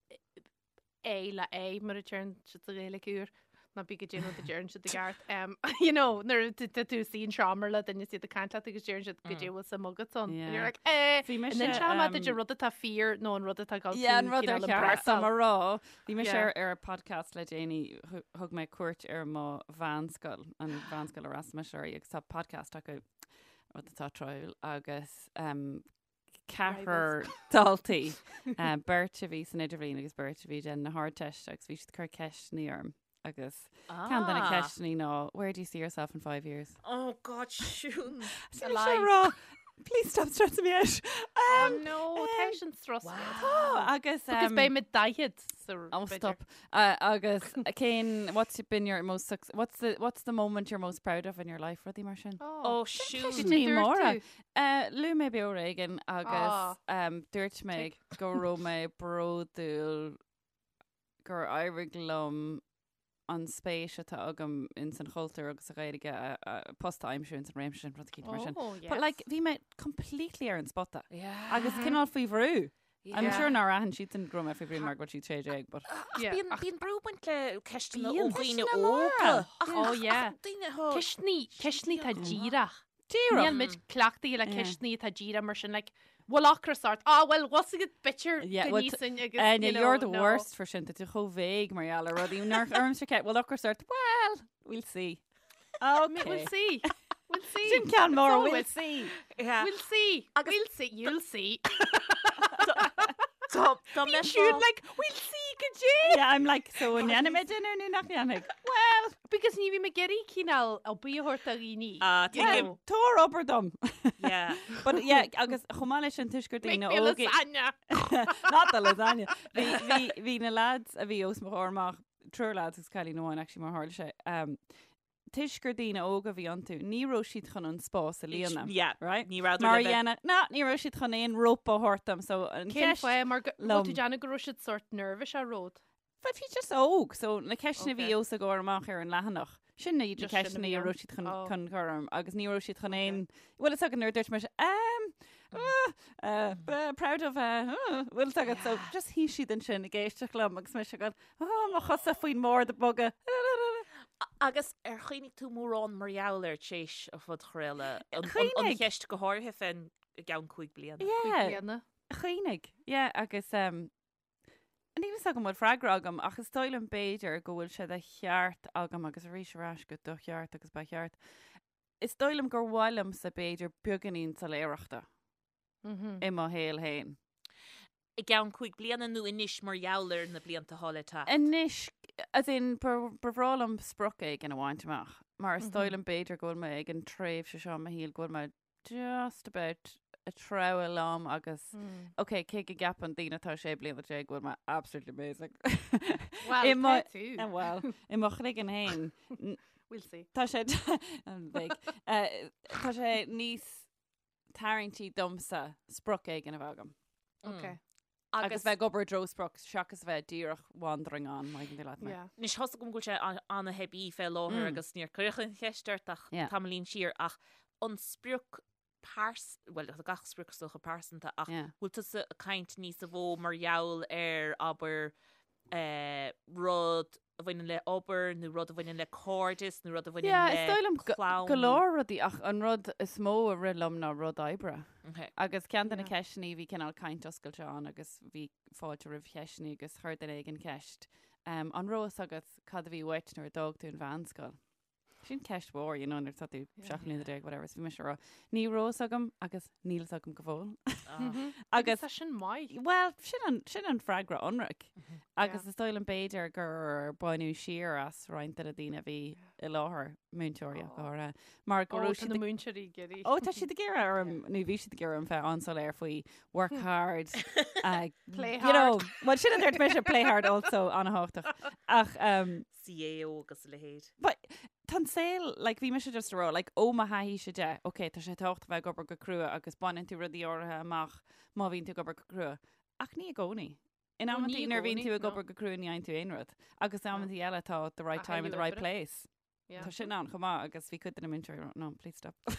é le é mar a deireann siad sa Ghaeilge úr, ná bí goidé an rud a deireann siad i gceart. Um, you know, nuair a tá tú suí in seomra le duine is iad ag caint leat agus deireann siad goidé bhfuil suim agat ann. And you're like, eh, Bhí mise, an inseoidh mé duit um, an rud atá fíor nó an rud atá ag dul Yeah, an tú rud ar cineál cheart dom a impressáil. rá. Bhí mise Yeah. ar ar podcast le déanaí, thu- thug mé cuairt ar mo mheánscoil, an mheánscoil a fhreastail mise uirthi, agus tá podcast acu, rud atá tráthúil, agus um, ceathrar daltaí, beirt a bhí san idirbhliain agus beirt a bhí ag déanamh na hArdteiste agus bhí siad ag cur ceisteanna orm agus ceann de na Ah. ceisteanna ná where do you see yourself in 5 years? Oh God, Siún. Sin sé rá, please stop stressing me out. Oh Um, no, tá sin strus. Tá, agus Because beidh mé 40 sa Oh, b'fhéidir. stop. Uh, agus cén, what's been your most suc what's the, what's the moment you're most proud of in your life, rudaí mar sin? Oh, Siún. Cad Ní é dúirt móra. tú? Uh, Luaigh mé Beo Ar Éigean agus Ah. um, dúirt mé go raibh mé bródúil gur éirigh liom an spéis atá agam in san chultúr agus sa Ghaeilge a, a, post a aimsiú in san réimse sin rud eicínt mar sin. Oh, But like yes. bhí mé completely ar an spota Yeah. agus cineál faoi bhrú. I'm Yeah. sure nár aithin siadsan go raibh mé faoi bhrú mar go raibh siad 16, but Ach Yeah, bíonn ach- bíonn brú ag baint le ceisteanna ó Bíonn. dhaoine Ceisteanna móra. óga. Ach, Oh, ach, yeah. ach, daoine atá- Ceisteanna, ceisteanna atá díreach. Díreach. Níl muid cleachtaithe le Yeah. ceisteanna atá díreach mar sin, like, bhfuil ocras ort? Ah, well, what's a good picture Yeah, go well, níosainn agus, Áine, you know, you're the no. worst for sin, tá tú chomh vague mar gheall ar rudaí. Nár ormsa ce, bhfuil ocras ort? Well, we'll see. Okay. Okay. We'll see. We'll see. Sin ceann mór, It's we'll always- see. Yeah. We'll see. We'll see. You'll see. Tá Bíonn siad like, we'll see go Goidé! Yeah, I'm like, so an ndéanfaidh mé dinnéar nó nach ndéanfaidh? Well, Because ní bhím ag iarraidh cineál obair a thabhairt do dhaoine. Ah, tuigim. Tabhair obair dom. Yeah. But yeah, agus chomh maith leis sin toisc gur Make daoine me a óga. lasagna. Not the lasagna. Bhí, bhí, bhí na lads a bhí os mo chomhair amach, triúr lads agus cailín amháin actually mar tharla sé, um, toisc gur daoine óga a bhí iontu, ní raibh siad chun an spás a líonadh. Yeah. Right? Ní rabhadar Mar le bheith- dhéanamh, ná, ní raibh siad chun aon rope a thabhairt dom, so an Cén cheist fáth mar go liom. bhfuil tú déanamh go raibh siad sort nervous ar rud? But bhí just óg, so na ceisteanna a bhí Okay. os a gcomhair amach ar an leathanach. Sin iad na Just sin a ceisteanna bhí a ann. raibh siad chun, Oh. chun cur orm, agus ní raibh siad chun aon, bhfuil fhios agat nuair a dúirt mise, um, uh, uh, uh, proud of, uh, uh, bhfuil fhios agat, so just shuigh siad ansin ag éisteacht liom agus mise ag goil, oh, mo chosa faoin mbord ag bogadh. Agus ar chuimhnigh tú mórán mar gheall air tar éis an phodchraoladh? An, an, an Chuimhnigh. cheist go háirithe fén i gceann 5 bliana. Yeah, Bliana. chuimhnigh. Yeah, agus um, níl fhios agam bhfuil freagra agam ach is dóigh liom b'fhéidir go bhfuil sé de cheart agam agus arís ar ais go do cheart agus ba cheart. Is dóigh liom gur mhaith liomsa b'fhéidir beagáinín soiléireachta i mo shaol féin. I gceann 5 bliana nó anois mar gheall ar na blianta atá le teacht? Anois, as in, ba bhreá liom sprioc éigin a bhaint amach, mar is dóigh liom b'fhéidir go bhfuil mé ag an tréimhse seo i mo shaol go bhfuil mé just about ag treabhadh liom agus, ok, cé go gceapann daoine atá 16 bliana go bhfuil mé absolutely amazing. Well, I mo- tá tú. Eh, Well, i mo chloigeann féin, We'll see. tá sé an-bhig. Eh, tá sé níos tarraingtí domsa sprioc éigin a bheith agam. Ok. Agus bheith ag obair i dtreo sprioc seachas a bheith díreach wandering on, má thuigeann tú leat mé. Yeah. Anois tá's agam go bhfuil sé an-theibí fé láthair agus níor cuireadh an cheist ort ach Yeah. tamaillín siar ach an sprioc pears, bhuel tá gach sprioc is dócha pearsanta ach Yeah. bhfuil tusa ag caint níos mó mar gheall ar abair eh, rud a bhaineann le obair nó rud a bhaineann le cairdeas nó rud a bhaineann Yeah, le is dóigh liom go- clann. go leor rudaí ach an rud is mó a rith liom ná rud oibre. Okay. Agus ceann de na Yeah. ceisteanna bhí cineál caint oscailte ann agus bhí fáilte roimh cheisteanna agus chuir duine éigin ceist. Um, an raibh fhios agat cad a bhí uait nuair a d'fhág tú an mheánscoil? Sin ceist mhór, you know, nuair atá tú 17 mbliana, whatever, is bhí mise ag rá, ní raibh fhios agam agus níl fhios agam go fóill. Ah. Agus Tá sin maith. Well, sin an, sin an freagra ionraic. Agus Yeah. is dóigh liom b'fhéidir gur baineadh siar as roinnt de na daoine a bhí i láthair, múinteoirí ach go háirithe, mar go Ó, raibh tá siad na ag- múinteoirí ag iarraidh. Ó, tá siad ag iarraidh orm, nó bhí siad ag iarraidh orm bheith an-soiléir faoi work hard, uh, Play you know, hard. well, sin a dúirt mise, play hard also, an-thábhachtach. Ach, um, CAO agus a leithéid. But tá an saol, like, bhí mise just ag rá, like, ó mo thaithíse de, ok, tá sé tábhachtach bheith ag obair go crua agus baineann tú rudaí áirithe amach má bhíonn tú ag obair go crua. Ach ní i gcónaí. In No, amantaí ní i nuair a bhíonn gcónaí, tú ag no. obair go crua ní fhaigheann tú aon rud. Agus in amantaí eile tá the right A time and thuilleadh the right oibre. place. Yeah. Tá sin ann chomh maith agus bhí cuid de na múinteoirí ag rá, no, please stop. No,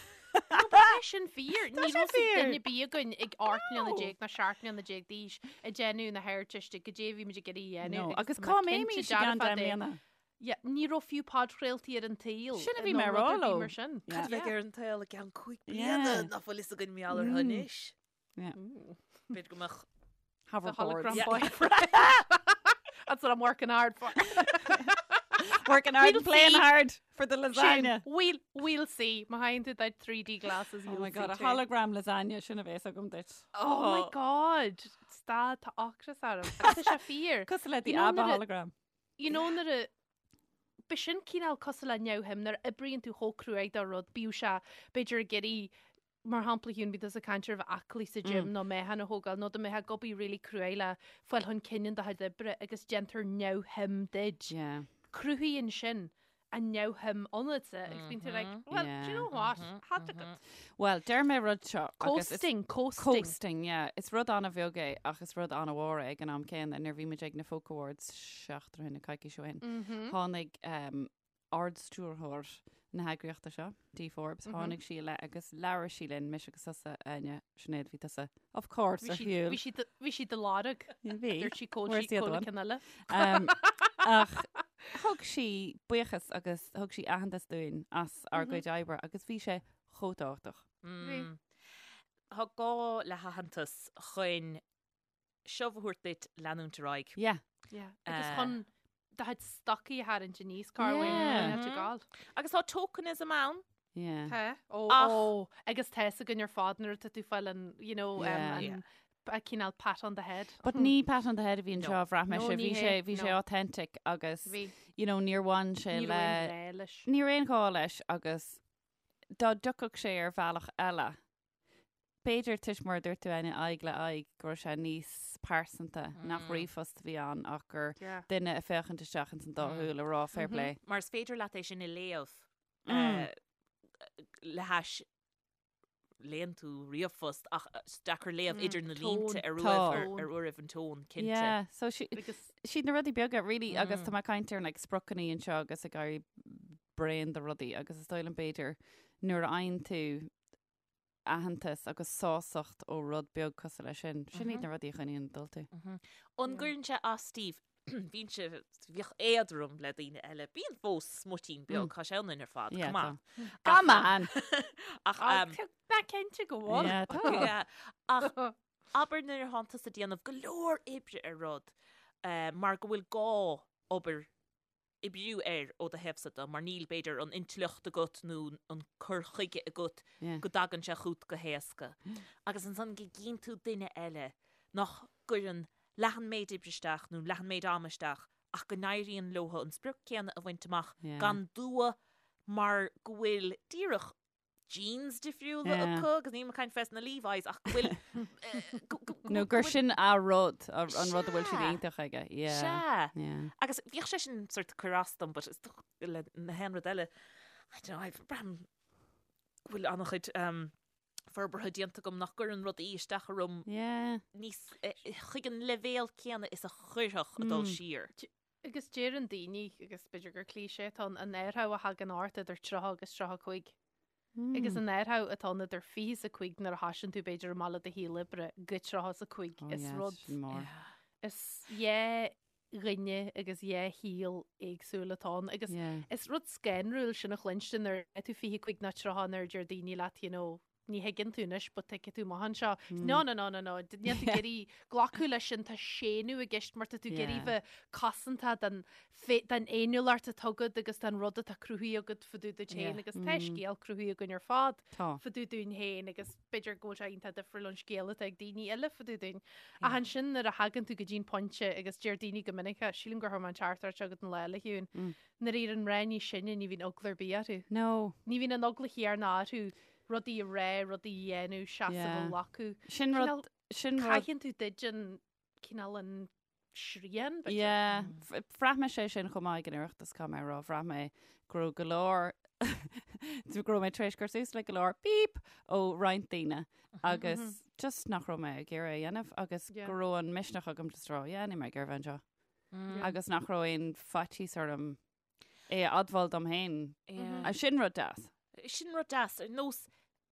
but tá sin fíor. Tá Ní sé raibh fhios ag fíor. duine ar bith againn ag 18 mbliana No. ná 17 mbliana d'aois ag déanamh na hArdteiste goidé a bhí muid ag iarraidh a dhéanamh. No, agus tá mé cá cinnte mbeimís i gceann dearfa deich de- mbliana? Yeah, ní raibh fiú podchraoltaí ar an tsaol. Sin a bhí nó mé ag rud rá ar bith leo. mar sin. Yeah. Cad a bheidh ar an tsaol i gceann 5 Yeah. bliana nach bhfuil fhios againn mar gheall orthu anois. Yeah. B'fhéidir go mbeadh The Hoverboards. hologram Yeah. boyfriend. That's what I'm working hard for. Working hard We'll and playing see. hard for the Sin, lasagna. we'll, we'll see. Má thagann tú do 3D glasses, Oh you'll my god, see a too. hologram lasagna, sin a bheas agam duit. Oh my god. Stad, tá ocras orm. Tá sé fíor. Cosúil le the You know ABBA nuair a- hologram. You know nuair a B'shin cineál cosúil le neamhshuim nuair a oibríonn tú chomh cruaidh do rud, bíodh sé b'fhéidir ag iarraidh, mar shampla Shiún, bíonn tusa ag caint ar bheith aclaí sa gym nó meáchan a thógáil nó dá mbeifeá ag obair really cruaidh le fáil chun cinn in do chuid oibre agus déantar neamhshuim duit. Yeah. Cruthaíonn sin an neamhshuim ionatsa agus bíonn tú like, well, do you know what? Had agat. Well, deir mé rud seo. agus is- Coasting, coasting. Coasting, yeah. Is rud an-bheag é ach is rud an-mhór é ag an am céanna. Nuair a bhí muid ag na Folk Awards seachtain ó shin, nó coicís ó shin, tháinig um, ardstiúrthóir na heagraíochta seo, Dee Forbes, tháinig sí i leith agus labhair sí linn, mise agus tusa, Áine, Sinéad, bhí tusa, of course, Bhí ar sí- shiúl. Bhí sí do- bhí sí do lorg. Bhí. Dúirt sí cá bhfuil Where's sí the other cá bhfuil one? ceann eile. Um, ach thug sí buíochas agus thug sí aitheantas dúinn as ár gcuid oibre agus bhí sé chomh tábhachtach. Bhí. Tá gá le haitheantas chun shove a thabhairt duit leanúint ar aghaidh. Yeah. Yeah. Agus Eh. chun do chuid stocaí a tharraingt aníos cá bhfuil Yeah. yeah. gáil. Agus tá tokenism ann. Yeah. Tá. Ó, Ach- ó, agus tá a fhios againn ar fad nuair atá tú fáil an, you know, um, Yeah. an, a cineál pat on the head. But ní pat on the head a bhí anseo, bhraith mise, bhí sé, bhí sé authentic agus, you know, níor bhain sé le, ní raibh aon ghá leis agus dá dtiocfadh sé ar bhealach eile, b'fhéidir toisc mar a dúirt tú Áine, aghaidh le aghaidh, go raibh sé níos pearsanta, nach ríomhphost a bhí ann ach gur duine ag féachaint isteach ins an dá shúil ag rá fair play. Mar is féidir leat é sin a léamh le hais léann tú ríomhphost ach is deacair léamh idir na línte ar uairibh ar uairibh an tón, cinnte. Yeah, so siad na rudaí beaga, really, agus tá mé ag caint ar like spriocanna anseo agus ag éirí bréan de rudaí agus is dóigh liom b'fhéidir nuair a fhaigheann tú aitheantas agus sásacht ó rud beag cosúil leis sin, sin iad na rudaí a choinníonn ag dul tú. An gcuireann sé as daoibh Bhínnse, bhíodh éadrom le daoine eile. Bíonn fós smuitín beag, tá sé ionainn ar fad, come on. Come on! Ach, um, Tá cinnte go bhfuil. Yeah, tá. Yeah. Ach abair nuair atánn tusa ag déanamh go leor oibre ar rud, eh, mar go bhfuil gá obair oibriú air ó do thaobhsa de, mar níl, b'fhéidir, an intleacht agat nó an cur chuige agat go dtagann sé chugat go héasca. Agus ansan go gcíonn tú duine eile nach gcuireann leath an méid oibre isteach nó leath an méid ama isteach ach go n-éiríonn leo an sprioc céanna a bhaint amach gan dua mar go bhfuil díreach genes difriúla acu agus níl mé ag caint fés na Levi's ach go bhfuil Nó gur sin a rud, an rud a bhfuil siad iontach aige. Sea. Agus bhíodh sé sin sort cur as dom but is le na haon rud eile I don't know, I've braithim go bhfuil an-chuid forbartha déanta agam nach gcuireann rudaí isteach orm níos chuig an leibhéal céanna is a chuirfeadh ag dul siar. Agus deireann daoine, agus b'fhéidir gur cliché atá ann, an athrú a thagann ort idir 30 agus 35. Agus an athrú atá ann idir 25 nuair a thosaíonn tú b'fhéidir amach le do shaol oibre go 35 Oh is yeah, rud sin mór. is dhá dhuine agus dhá shaol éagsúil atá ann. Agus Yeah. is rud scanrúil sin a chluinstin nuair atá tú 25 nó 30 nuair a deir daoine leat, you know, ní thuigeann tú anois but tuigfidh tú amach anseo. No, no, no, no, no, níl tú ag iarraidh glacadh leis sin, tá séanadh i gceist mar tá tú ag iarraidh bheith cosanta den den fhéiniúlacht atá agat agus den rud atá cruthaithe agat fá dtaobh duit féin agus tá scéal cruthaithe againn ar fad fá dtaobh dúinn féin agus b'fhéidir go bhfuil sé iontach difriúil ón scéal atá ag daoine eile fá dtaobh dúinn. Ach ansin nuair a thagann tú go dtí'n pointe agus deir daoine go minic, sílim gur chuir mé an teachtaireacht seo chugat an lá eile, a Shiún, nuair a éiríonn mná níos sine ní bhíonn eagla ar bith orthu. No. Ní bhíonn an eagla chéanna orthu rudaí a rá, rudaí a dhéanamh, seasamh a Yeah. ghlacadh. Sin rud, Cineál- sin rud. Caitheann tú duit an cineál an srian, b'fhéidir. Yeah. Bhraith mé sé sin chomh maith ag an Oireachtas, caithfidh mé a rá. Bhraith mé go raibh go leor, go raibh mé tar éis cur suas le go leor beep ó roinnt daoine agus just nach raibh mé ag iarraidh a dhéanamh agus Yeah. go raibh an misneach agam just rá, yeah, níl mé ag iarraidh bheith anseo. Agus nach raibh aon faitíos orm é a admháil dom féin. Yeah. Sin rud deas. Sin rud deas, ar nós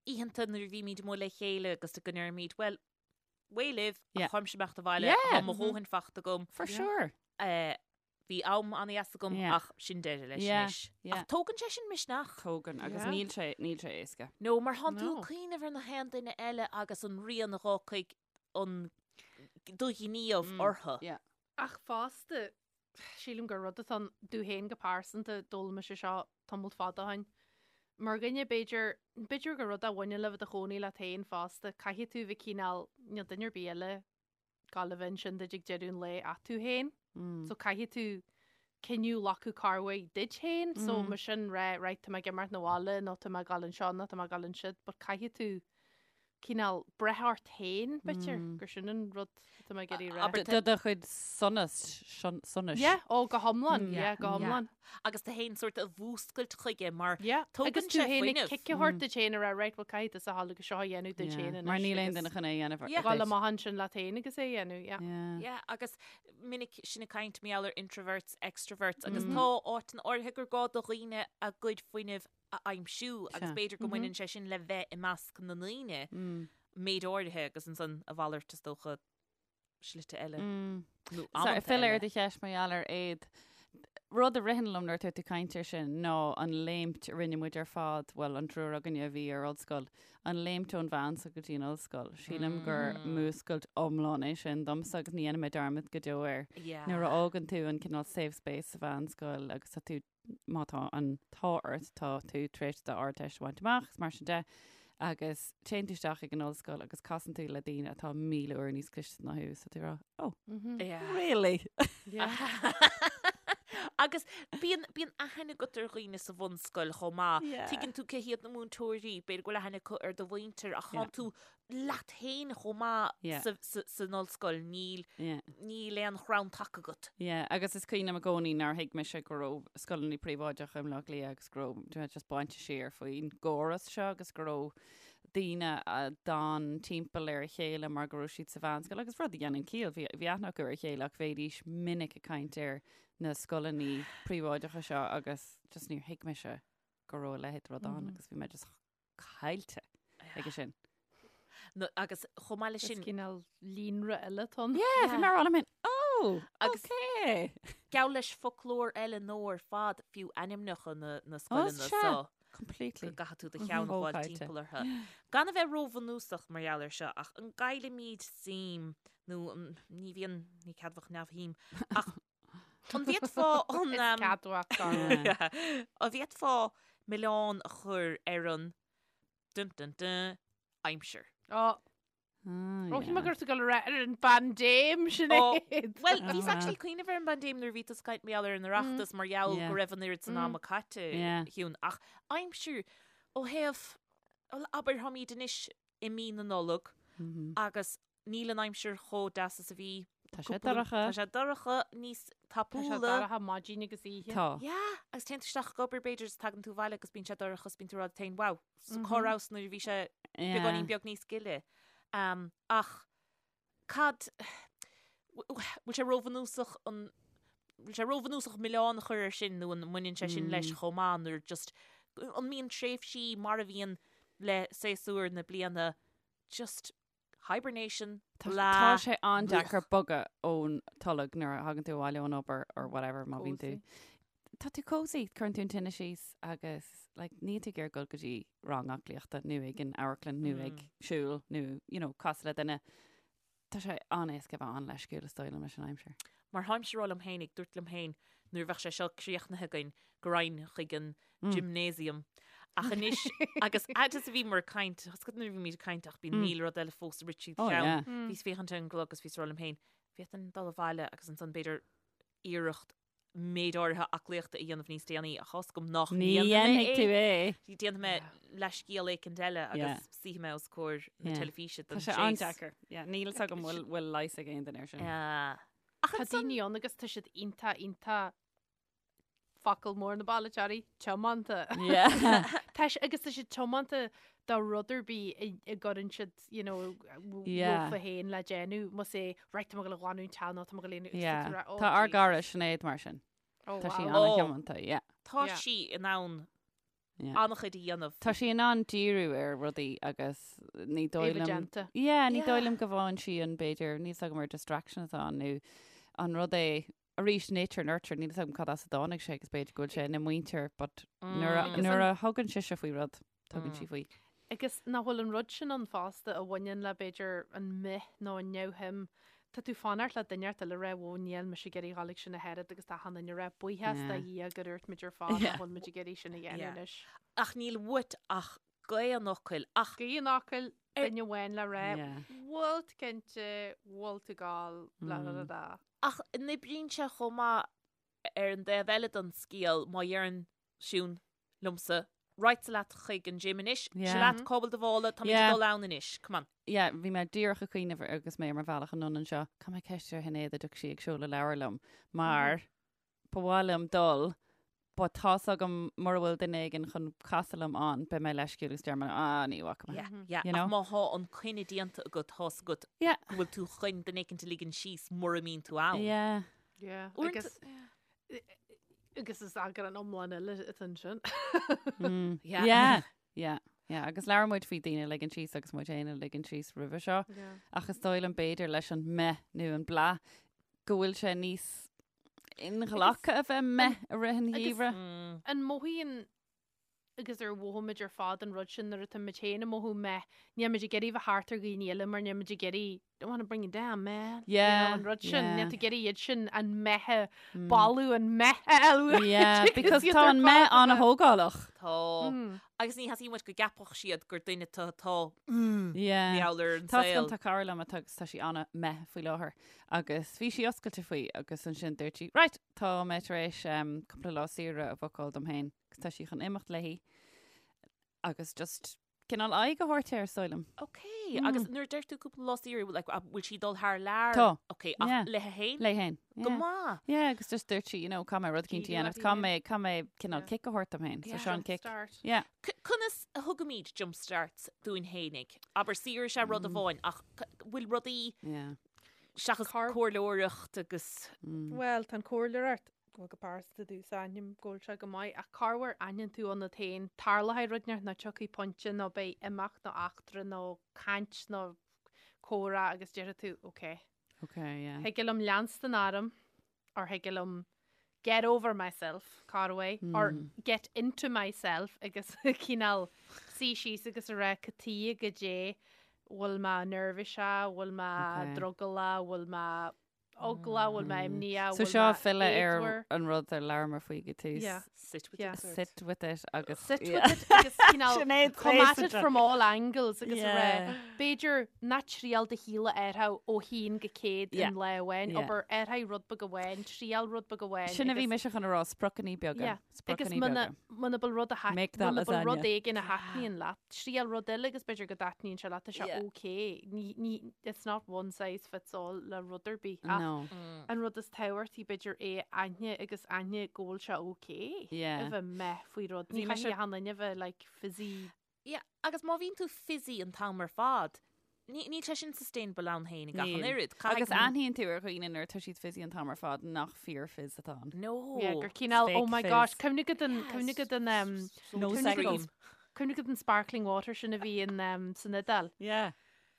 oícheanta nuair a bhímid amuigh le chéile agus go ndeirimid, well, away libh, Yeah. ach táimse ag imeacht abhaile, Yeah. tá mo dhóthain fachta agam. For sure. Eh, bhí am an-dheas agam Yeah. ach sin deireadh leis Yeah, anois. yeah. Ach tógann sé sin misneach. Tógann, agus Yeah. níl sé, níl sé éasca. No, mar thánn tú No. ag cuimhneamh ar na haon duine eile agus an rian a dh'fhágfaidh an do ghníomh orthu. Yeah. Ach fosta, Sílim gur rud atá ann domh féin go pearsanta, d'fhoghlaim mise seo tamalt fada ó shin. Mar dhuine, b'fhéidir, b'fhéidir gur rud a bhaineann le bheith i do chónaí leat féin fosta, caithfidh tú bheith cineál, níl duine ar bith eile ag gabháil a bheith ansin duit ag deireadh an lae ach tú féin. So caithfidh tú cinneadh a ghlacadh cár mhaith duit féin, so mar sin rá, right, tá mé ag imeacht 'na bhaile nó tá mé ag gabháil anseo nó tá mé ag gabháil ansiúd, but caithfidh tú cineál breith ort féin, b'fhéidir, gur sin an rud atá mé ag iarraidh a rá. Abair Do do chuid sonas, sonais. Yeah, ó, go hiomlán, yeah, go hiomlán. Agus tú féin sort a mhúscailt chuige mar Yeah, tógann agus tú sé féin ag fuinneamh. cic a thabhairt duit féin a rá, right, well, caithfidh tusa a ghabháil agus seo a dhéanamh duit féin anois. Mar níl aon agus duine chun é a dhéanamh Yeah. Gabháil amach ansin leat féin agus é a dhéanamh, yeah. Yeah. Yeah, agus minic sinn ag caint mar gheall ar introverts, extroverts, agus tá áiteanna áirithe gur gá do dhaoine a gcuid fuinnimh a aimsiú agus b'fhéidir go mbaineann sé sin le bheith i measc na ndaoine méid áirithe agus ansan a mhalairt is dócha slite eile nó amanta Filleadh ar eile. do cheist mar gheall ar éad. Rud a ritheann liom nuair atá tú ag caint air sin ná an léimt a rinne muid ar fad, bhuel an triúr againne a bhí ar ollscoil, an léimt ón mheánscoil go dtí an ollscoil. Sílim gur múscailt iomlán é sin domsa agus ní dhéanfaidh mé dearmad go deo air. Nuair a fhágann tú an cineál safe space sa mheánscoil agus tá tú má tá an t-ádh ort, tá tú tar éis d'Ardteist a bhaint amach, is mar sin de. Agus téann tú isteach ag an ollscoil agus casann tú le daoine atá 1,000 uair níos cliste ná thú, so tú ag rá, oh, Yeah. really? Yeah. Agus bíonn bíonn aithne agat ar dhaoine sa bhunscoil chomh maith. Yeah. Tuigeann tú cé hiad na múinteoirí, b'fhéidir go bhfuil aithne acu ar do mhuintir ach Yeah. tánn tú leat féin chomh maith Yeah. sa, sa, san ollscoil, níl, Yeah. níl aon chrann taca agat. Yeah, agus is cuimhin liom i gcónaí nár thuig mise go raibh scoileanna príobháideacha i mBleá Cliath agus go raibh you know, just bainte siar faoin gcóras seo agus go raibh daoine a d'fhan timpeall ar a chéile mar go raibh siad sa mheánscoil agus rud a dhéanann ciall, bhí, bhí aithne acu ar a chéile ach bhéidís minic ag caint ar na scoileanna príobháideacha seo agus just níor thuig mise go raibh a leithéid de rud ann agus bhí mé just caillte aige sin. No, agus chomh maith leis Is sin, cineál líonra eile atá ann. Yeah, bhí mé ag rá liom féin, oh, Agus- okay. gabh leis foclóir eile nó ar fad fiú ainmneacha na, na scoileanna sea. so Completely. go gcaithfidh tú do cheann a fháil Chomh caillte. timpeall orthu. Gan a bheith róbhunúsach mar gheall air seo, ach an gcaillimid suim, nó an, ní bhíonn, ní ceadmhach neamhshuim, ach an bhféadfá an, Is um, ceadmhach dar. Yeah. an bhféadfá milleán a chur ar an dun dun dun aimsir? Ó, Ah, ó, shíl mé yeah. go raibh tú ag dul a rá ar an bpaindéim sin Ó, é. Well, bhíos Ah. actually ag cuimhneamh ar an bpaindéim nuair a bhí tú ag caint mar gheall ar an Oireachtas mar gheall Yeah. go raibh an oiread san Mm. ama caite Yeah. Shiún. Ach aimsir ó thaobh, bhuel, abair táimid anois i mí na Nollag Mhm. agus níl an aimsir chomh deas is a bhí. Tá sé cúpla- dorcha. Tá sé dorcha níos Tá sé tapúla. dorcha maidin agus oíche. Tá. Yeah, agus téann tú isteach ag obair b'fhéidir is tagann tú abhaile agus bíonn sé dorcha is bíonn tú ag rá leat féin, wow, so cá rabhas nuair a bhí sé beagáinín beag níos gile. Um, ach cad, bhfuil sé róbhunúsach an, bhfuil sé róbhunúsach milleán a chur air sin nó an mbaineann sé sin leis chomh maith nuair just, an mbíonn tréimhsí mar a bhíonn le séasúr na bliana just hibernation, Tá blah, tá sé an-deacair bogadh ón tolg nuair a thagann tú abhaile ón obair or whatever má bhíonn tú. Tá tú cozy, cuireann tú an tine síos agus like, níl tú ag iarraidh dul go dtí rang aclaíochta nó ag an amharclann nó ag siúl nó you know, casadh le duine. Tá sé an-éasca a bheith an-leisciúil is dóigh liom leis an aimsir. Mar tháimse ag rá liom féin, ag dúirt liom féin nuair a bheadh sé seo críochnaithe againn go raghainn chuig an gymnasium. Ach anois, agus fhad is a bhíomar ag caint, tá a fhios agat nuair a bhímid ag caint ach bíonn 1000 rud eile fós ag rith tríd Oh, cheann. yeah. Bhíos ag féachaint ar an gclog agus bhíos ag rá liom féin, bhféadfainn dul abhaile agus ansan b'fhéidir iarracht méid áirithe aclaíochta a dhéanamh níos déanaí ach tá a fhios agam nach Ní ndéanfaidh mé dhéanfaidh tú é. é. Déanfaidh mé leathscéal éicint eile Yeah. agus suífidh mé os comhair na Yeah. teilifíse Tá don sé séas. an-deacair. Yeah, níl a fhios agam bhfuil bhfuil leigheas ag aon duine air sin. Yeah. Ach Tá ansan daoine ann agus tá siad iontach iontach focal mór na bailitheoirí, tiomanta. Yeah. Tá sé- agus tá siad tiomanta do rud ar bith a a gcuireann siad, you know, Yeah. leofa féin le déanamh, más é, right, tá mé ag dul a ghlanadh an teach nó tá mé ag dul a dhéanamh, agus Yeah. tá tú ag rá, "Oh, Tá ár Jesus." gcara Sinéad mar sin. Oh, Tá sí wow. Oh. an-thiomanta, yeah. tá Yeah. sí in ann Yeah. an-chuid a dhéanamh. Tá sí in ann díriú ar rudaí agus ní dóigh É liom déanta. Yeah, ní Yeah. dóigh liom go bhfaigheann sí an b'fhéidir, níl a fhios agam ar distraction atá ann nó an rud é arís nature nurture, níl a fhios agam cad as a dtáinig sé agus b'fhéidir go bhfuil sé ina muintir but nuair a, Agus nuair an- a thugann sise faoi rud, tugann sí faoi. Agus nach bhfuil an rud sin ann fosta a bhaineann le b'fhéidir an meh nó an neamhshuim. Tá tú fanacht le duine eile a rá whoa níl mise ag iarraidh dhul ag sin ach oiread agus tá achan duine ag rá buíochas do Yeah. Dhia gur dhúirt muid ar fad Yeah. nach bhfuil muid ag iarraidh sin a dhéanamh Yeah. anois. Ach níl uait ach gaoth an fhocail ach Gaoth an fhocail Ar- duine amháin le rá Yeah. bhfuil tú cinnte, bhfuil tú ag gabháil, blah blah blah blah. Ach an oibríonn sé chomh maith ar an dtaobh eile den scéal má dheireann Siún liomsa, Right seo leat chuig an gym anois, seo Yeah. leat cá bhfuil do mhála, táimid Yeah. ag dul ann anois, come on. Yeah, bhí mé díreach ag cuimhneamh agus mé ar mo bhealach anonn anseo, caithfidh mé ceist ar Shinéad an dtiocfaidh sí ag seoladh leabhar liom, mar ba mhaith liom dul, but tá's agam mura bhfuil duine éigin chun casadh liom ann, beidh mé leisciúil agus déarfaidh mé, ah, ní bhfaca mé. Yeah, yeah. You know? Ach má thá an coinne déanta agat, tá's agat Yeah. go bhfuil tú chun duine éicint a ligean síos mura mbíonn tú ann. Yeah. Yeah. Uaireanta- Agus agus is eagrán iomlán eile atá ansin. Mm. Yeah. Yeah. Yeah. Yeah. Agus labhair muid faoi daoine a ligean síos agus muid féin a ligean síos roimhe seo. Yeah. Ach is dóigh liom b'fhéidir leis an meh nó an blah go bhfuil sé níos inghlactha a bheith meh i rith an agus- gheimhridh. Mm. An mothaíonn. agus ar mhothaigh muid ar fad an rud sin nuair atá muid féin ag mothú meh, níl muid ag iarraidh bheith thart ar dhaoine eile mar níl muid ag iarraidh don't want to bring you down, man. You know, Yeah, an rud sin, yeah. níl tú ag iarraidh iad sin an meh a bailiú, an meh a fháil. Yeah, because tá an meh an-thógálach. Tá. Agus ní theastaíonn uait go gceapfadh siad gur duine tú atá Yeah. meall ar an Tá saol. tá cara liom atá agus tá sí an-meh faoi láthair agus bhí sí oscailte faoi agus ansin dúirt sí, right, tá mé tar éis um, cúpla lá saoire a bhookáil dom féin agus tá sí chun imeacht léi agus just cineál aghaidh a thabhairt air, is dóigh liom. Ok, agus nuair a deir tú cúpla lá saoire, like, a- bhfuil sí ag dul thar lear? Tá. Ok, ach Yeah. léi féin? Léi féin. Go Yeah. maith. Yeah, agus just dúirt sí, you know, caithfidh mé rud eicínt a Díriú dhéanamh, uirthi caithfidh féin. mé, caithfidh mé cineál Yeah. kick a thabhairt dom féin. So Yeah. seo an kick. Start. Yeah. C- Conas a thugaimid jump starts dúinn fhéinig? Abair saoire is ea rud amháin, ach c- bhfuil rudaí Yeah. seachas Car- comhairleoireacht agus Well, tá an comhairleoireacht bhuel go pearsanta domhsa aithním go bhfuil sé go maith ach corruair aithníonn tú ionat féin tarlóidh rud inteacht nó tiocfaidh pointe nó beidh imeacht nó eachtra nó caint nó comhrá agus déarfaidh tú ok. Ok, yeah. Thig liom leanstan orm or thig liom get over myself, corruair, or get into myself agus cineál suí síos agus a rá cad chuige goidé bhfuil mé neirbhíseach, bhfuil mé Ok. drogallach, bhfuil mé eagla, bhfuil mé imníoch, So bhfuil seo mé filleadh ar éadmhar. an rud ar labhramar faoi go tús. Yeah. sit with Yeah. it. Sit with it agus Sit yeah. with it agus cineál Sinéad come at it Fraser. from all angles agus a rá Yeah. b'fhéidir ná triail do shaol a athrú ó haon go 100 Yeah. in lá amháin, Yeah. abair athraigh rud beag amháin, triail rud beag amháin Sin a bhí agus- mise chun a rá spriocanna beaga. Yeah. Agus Spriocanna muna beaga. muna bhfuil rud a tha- Make that muna bhfuil rud lasagna. éigin a thaitníonn leat, triail rud eile agus b'fhéidir go dtaitníonn sé leat, tá sé Yeah. okay. Ní, ní, it's not one size fits all le rud ar bith. Ach No. an rud is tábhachtaí b'fhéidir é a aithne agus aithne go bhfuil sé okay Yeah. a bheith meh faoi rud. Bhí Ní mise- chaithfidh achan duine a bheith like fizzy. Yeah, agus má bhíonn tú fizzy an t-am ar fad, ní níl sé sin sustainable ann féin ag achan Níl. oiread. Agus Caithfidh- aithníonn tú ar dhaoine nuair atá siad fizzy an t-am ar fad nach fíor fizz atá ann. No. Yeah, gur cineál, oh Fake my fizz. gosh, cuimhnigh go den, cuimhnigh go den, um, No cuimhnigh go second. den- cuimhnigh go den sparkling water sin a bhí in, um, san Iodáil. Yeah.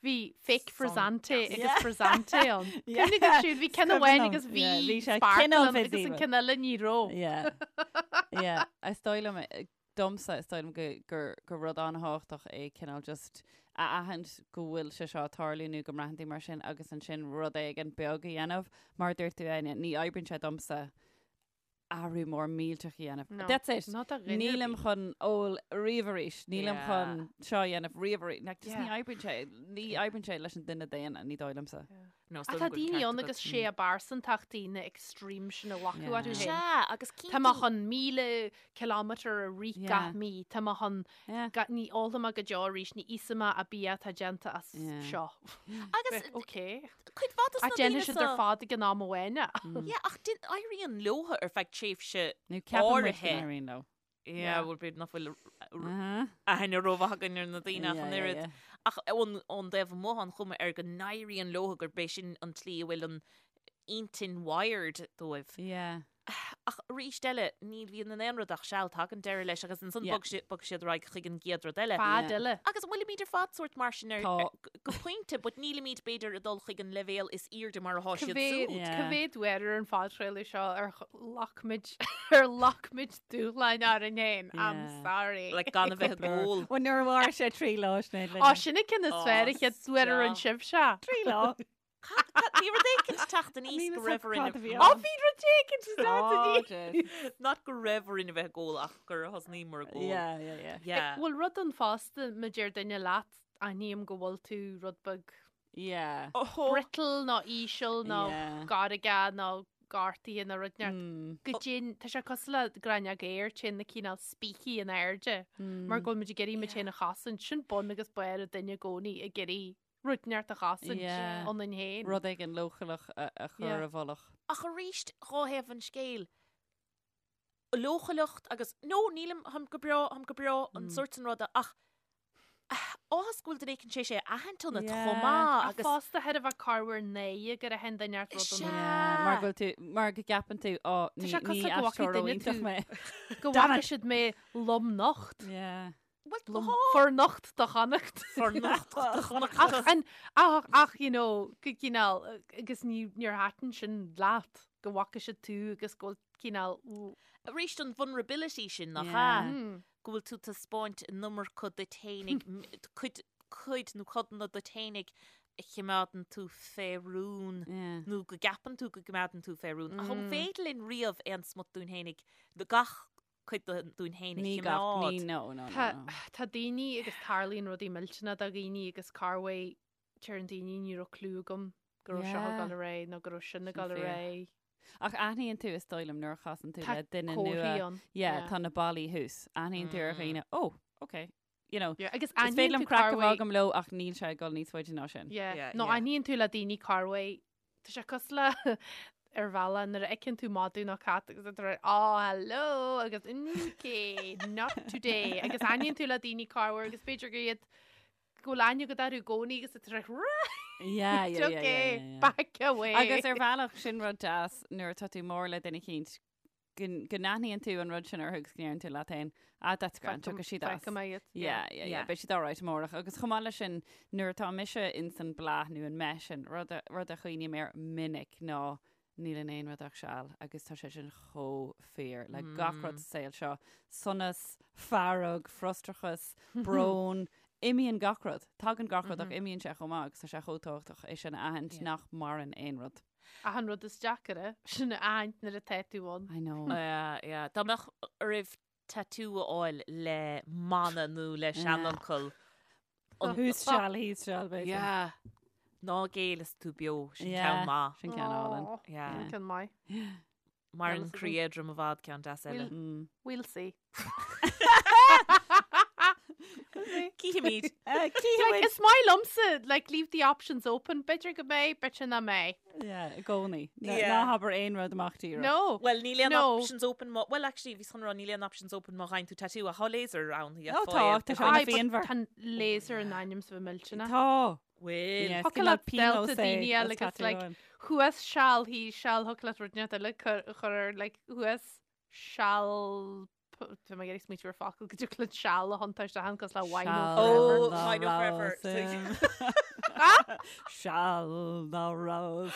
Bhí fake frizzante agus Yeah. frizzante ann. Yeah. Cuimhnigh go siúd, bhí ceann Cuimhin amháin liom. agus bhí Yeah, bhí sé sparkle cineál ann agus fizzy, an but- ceann eile ní raibh. Yeah. Yeah. Is dóigh liom, eh, domsa is dóigh liom go, gur, gur rud an-thábhachtach é cineál just a aithint go bhfuil sé seo ag tarlú nó go mbraitheann tú mar sin agus ansin rud éigin beag a dhéanamh. Mar a dúirt tú, Áine, ní oibríonn sé domsa athrú mór millteach a dhéanamh. No. That's it. Not a dhuine ar Nílim bith. chun ól riamh arís, nílim Yeah. chun seo a dhéanamh riamh arís. Like, just ní Yeah. oibríonn sé, ní oibríonn sé leis an duine daonna, ní dóigh liomsa. No, is Ach dóigh tá liom go bhfuil daoine ceart ann agat. agus sé a bpearsantachtaí na extreme sin a ghlacadh Yeah. orthu féin. Sea, agus Tá mé cinntiú- chun 1000 kilometre a rith Yeah. gach mí, Tá mé chun Yeah. ga- ní ólfaidh mé go deo arís, ní íosfaidh mé an bia atá déanta as Yeah. seo. Agus Ok. cuid mhaith dos Ach na déanfaidh daoine siad ar seo- fad ag an am amháin é. Yeah, ach din- éiríonn leo ar feadh tréimhse Nó ceapann muid go áirithe. n-éiríonn leo. Yeah, bhuel, b'fhéidir nach bhfuil Uh-huh. aithne rómhaith againn ar na daoine ach Yeah, an yeah, oiread. yeah. Ach ón ón dtaobh amuigh an chuma air go n-éiríonn leo gurb é sin an tslí a bhfuil an intinn wired dóibh. Yeah. Ach arís eile, ní bhíonn in aon rud ach seal, tagann deireadh leis agus ansan Yeah. bog si- bog siad ar aghaidh chuig an gcéad rud eile. Fad Yeah. eile. Agus an bhfuilimid ar fad sórt mar sin ar Tá. ar- go pointe, but nílimid b'fhéidir ag dul chuig an leibhéal is airde mar atá siad Cá mhéad súd. Yeah. cá mhéad uair ar an phodchraoladh seo ar ghlac muid ar ghlac muid dúshláin orainn féin. I'm Yeah. sorry. Like gan a bheith ag ól. Well, nuair a mhair sé trí lá Sinéad Á sin an ceann is Ó, fearr an chéad uair ar an stop. sibhse. Trí lá. Cad- cad- Bhí rud éicint teacht aníos Níl go fhios raibh agam orainn cad a bhí Á ann. bhí rud éicint teacht aníos. Not go raibh orainn a bheith ag ól ach gur thosnaíomar ag ól. Yeah, yeah, yeah. Yeah. Bhfuil rud ann fosta má deir duine leat aithním go bhfuil tú rud beag Yeah. Oh, brittle nó íseal nó Yeah. gairge nó gortaithe nó rud inteacht. Mm. Go dtéann tá sé cosúil le gráinneog aeir téann na cineál spící in airde mar go bhfuil muid ag iarraidh muid féin a chosaint sin bun agus barr an duine i gcónaí ag iarraidh rud inteacht a chosaint Yeah. ionainn féin. Rud éigin leochaileach a a chur Yeah. i bhfolach. Ach arís dhá thaobh an scéil. Leochaileacht agus no nílim tháim go breá tháim go breá an sórt sin ruda ach áthas go bhfuil duine éicint tar éis é a aithint ionat Yeah. chomh maith Ach agus fosta thar a bheith corruair náire gur aithin duine ort rud Sea. ionat. Yeah, mar go bhfuil tú mar go gceapann tú ó Tá ní sé cosúil ní go bhfaca aisteoir duine iontach tú. mé. Go Damn bhfaca it. siad mé lomnocht. Yeah. Well, Lom tá. fornocht do Chonnacht. Fornocht do Chonnacht. Ach an ach ach you know go cineál agus ní níor thaitin sin leat go bhfaca siad tú agus go bhfuil cineál Arís an vulnerability sin nach Yeah. ea? Mm. go bhfuil tú ag taispeáint an iomarca duit fhéinig, cuid, cuid nó codanna duit fhéinig a chimeádann tú fé rún nó go gceapann tú go gcimeádann tú fé rún. Ach an féidir linn riamh aon smut dúinn fhéinig, gach cuid dúinn fhéin a Ní gach, chimeád? ní, no, no, no, Tá, no. tá daoine agus tarlaíonn rudaí millteanna do dhaoine agus corruair deireann daoine ní raibh clue agam go raibh seo ag Yeah. dul ar aghaidh nó go raibh sin ag Sin dul ar fíor. aghaidh. Ach aithníonn tú is dóigh liom nuair a chasann tú Tá le duine comharthaí nua. ann. Yeah, Yeah. tá na ballaí thuas. Aithníonn tú ar dhaoine, oh, okay. You know, Yeah, agus is féidir aithníonn liom tú craic a bheith corruair agam leo ach níl sé ag dul níos faide ná sin. Yeah. Yeah, Nó yeah. aithníonn tú le daoine corruair Tá sé cosúil le ar bhealach nuair a fheiceann tú madadh nó cat agus tá tú oh hello agus okay, not today agus aithníonn tú le daoine corruair agus b'fhéidir gur iad go bhfuil aithne agat orthu i gcónaí agus tá tú right Yeah, yeah, yeah, yeah, okay, yeah, yeah. back away. Agus ar bhealach sin rud deas nuair atá tú mór le duine eicínt go n-aithníonn tú an rud sin orthu agus go ndeireann tú leat féin, ah, that's grand, tiocfaidh siad as. Feicfidh mé iad. Yeah, yeah, yeah, beidh siad alright amárach. Agus chomh maith leis sin, nuair atá mise ins an bláth nó an mbeith sin, rud a, rud a chuimhním air minic ná níl in aon rud ach seal agus tá sé sin chomh fíor le gach rud sa saol seo. Sonas, fearg, frustrachas, brón, imíonn gach rud. Tagann gach rud ach imíonn sé chomh maith agus tá sé chomh tábhachtach é sin a aithint nach maireann aon rud. Ach an rud is deacaire, sin a aithint nuair atá tú ann. I know. Yeah, yeah. Dá mbeadh oraibh tattoo a fháil le mana nó le seanfhocal. Thuas seal, thíos seal, b'fhéidir. Yeah. Ná géill is tú beo, sin Yeah, ceann maith. Sin ceann álainn. Aw, Yeah. Sin ceann maith. Maireann Well, croí éadrom i bhfad ceann deas eile. Mm. We'll see. Cífimid. Like, is maith liomsa, like, leave the options open. B'fhéidir go mbeidh, b'fhéidir nach mbeidh. Yeah, i gcónaí. Yeah. Ná habair aon rud amach díreach. No. Well, níl aon No. options open má... Well, actually, bhíos chun rá níl aon options open má gheibheann tú tattoo ach tá laser ann. Ó, tá, tá sé Aye, but phianmhar. Tá laser in ainm is a bheith millteanach. Tá. Bhfuil. Yeah, Thiocfadh cineál leat delta pionós é daoine eile as agus, tattoo like, amháin. Thuas seal, thíos seal, thiocfadh leat rud inteacht eile a chur ar, like, thuas seal, tá mé ag iarraidh smaoitiú ar focal go dtiocfadh leat seal a thiontú isteach ann cosúil le Wino Seal Forever. Oh, ná Wino Forever. rabhas. Seal ná rabhas.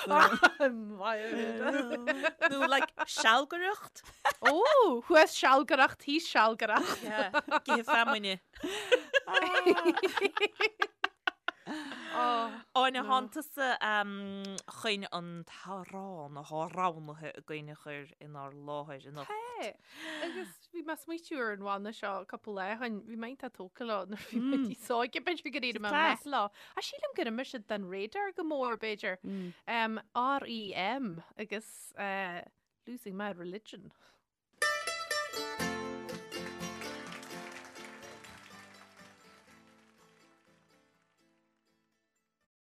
Nó, like, sealgaireacht. Ó, thuas sealgaireacht, thíos sealgaireacht. Yeah. Githe feamainne. Áine, thánn tusa chun an t-amhrán atá roghnaithe againn a chur inár láthair anocht. Tá, agus bhí mé ag smaoitiú ar an bhanna seo cúpla lá ó shin, bhí mé iontach tógtha leo nuair a bhí mé níos óige, b'fhéidir gur éirigh mé Class. méith leo. Ach sílim gur imigh siad den radar go mór, b'fhéidir. REM agus eh, Losing My Religion.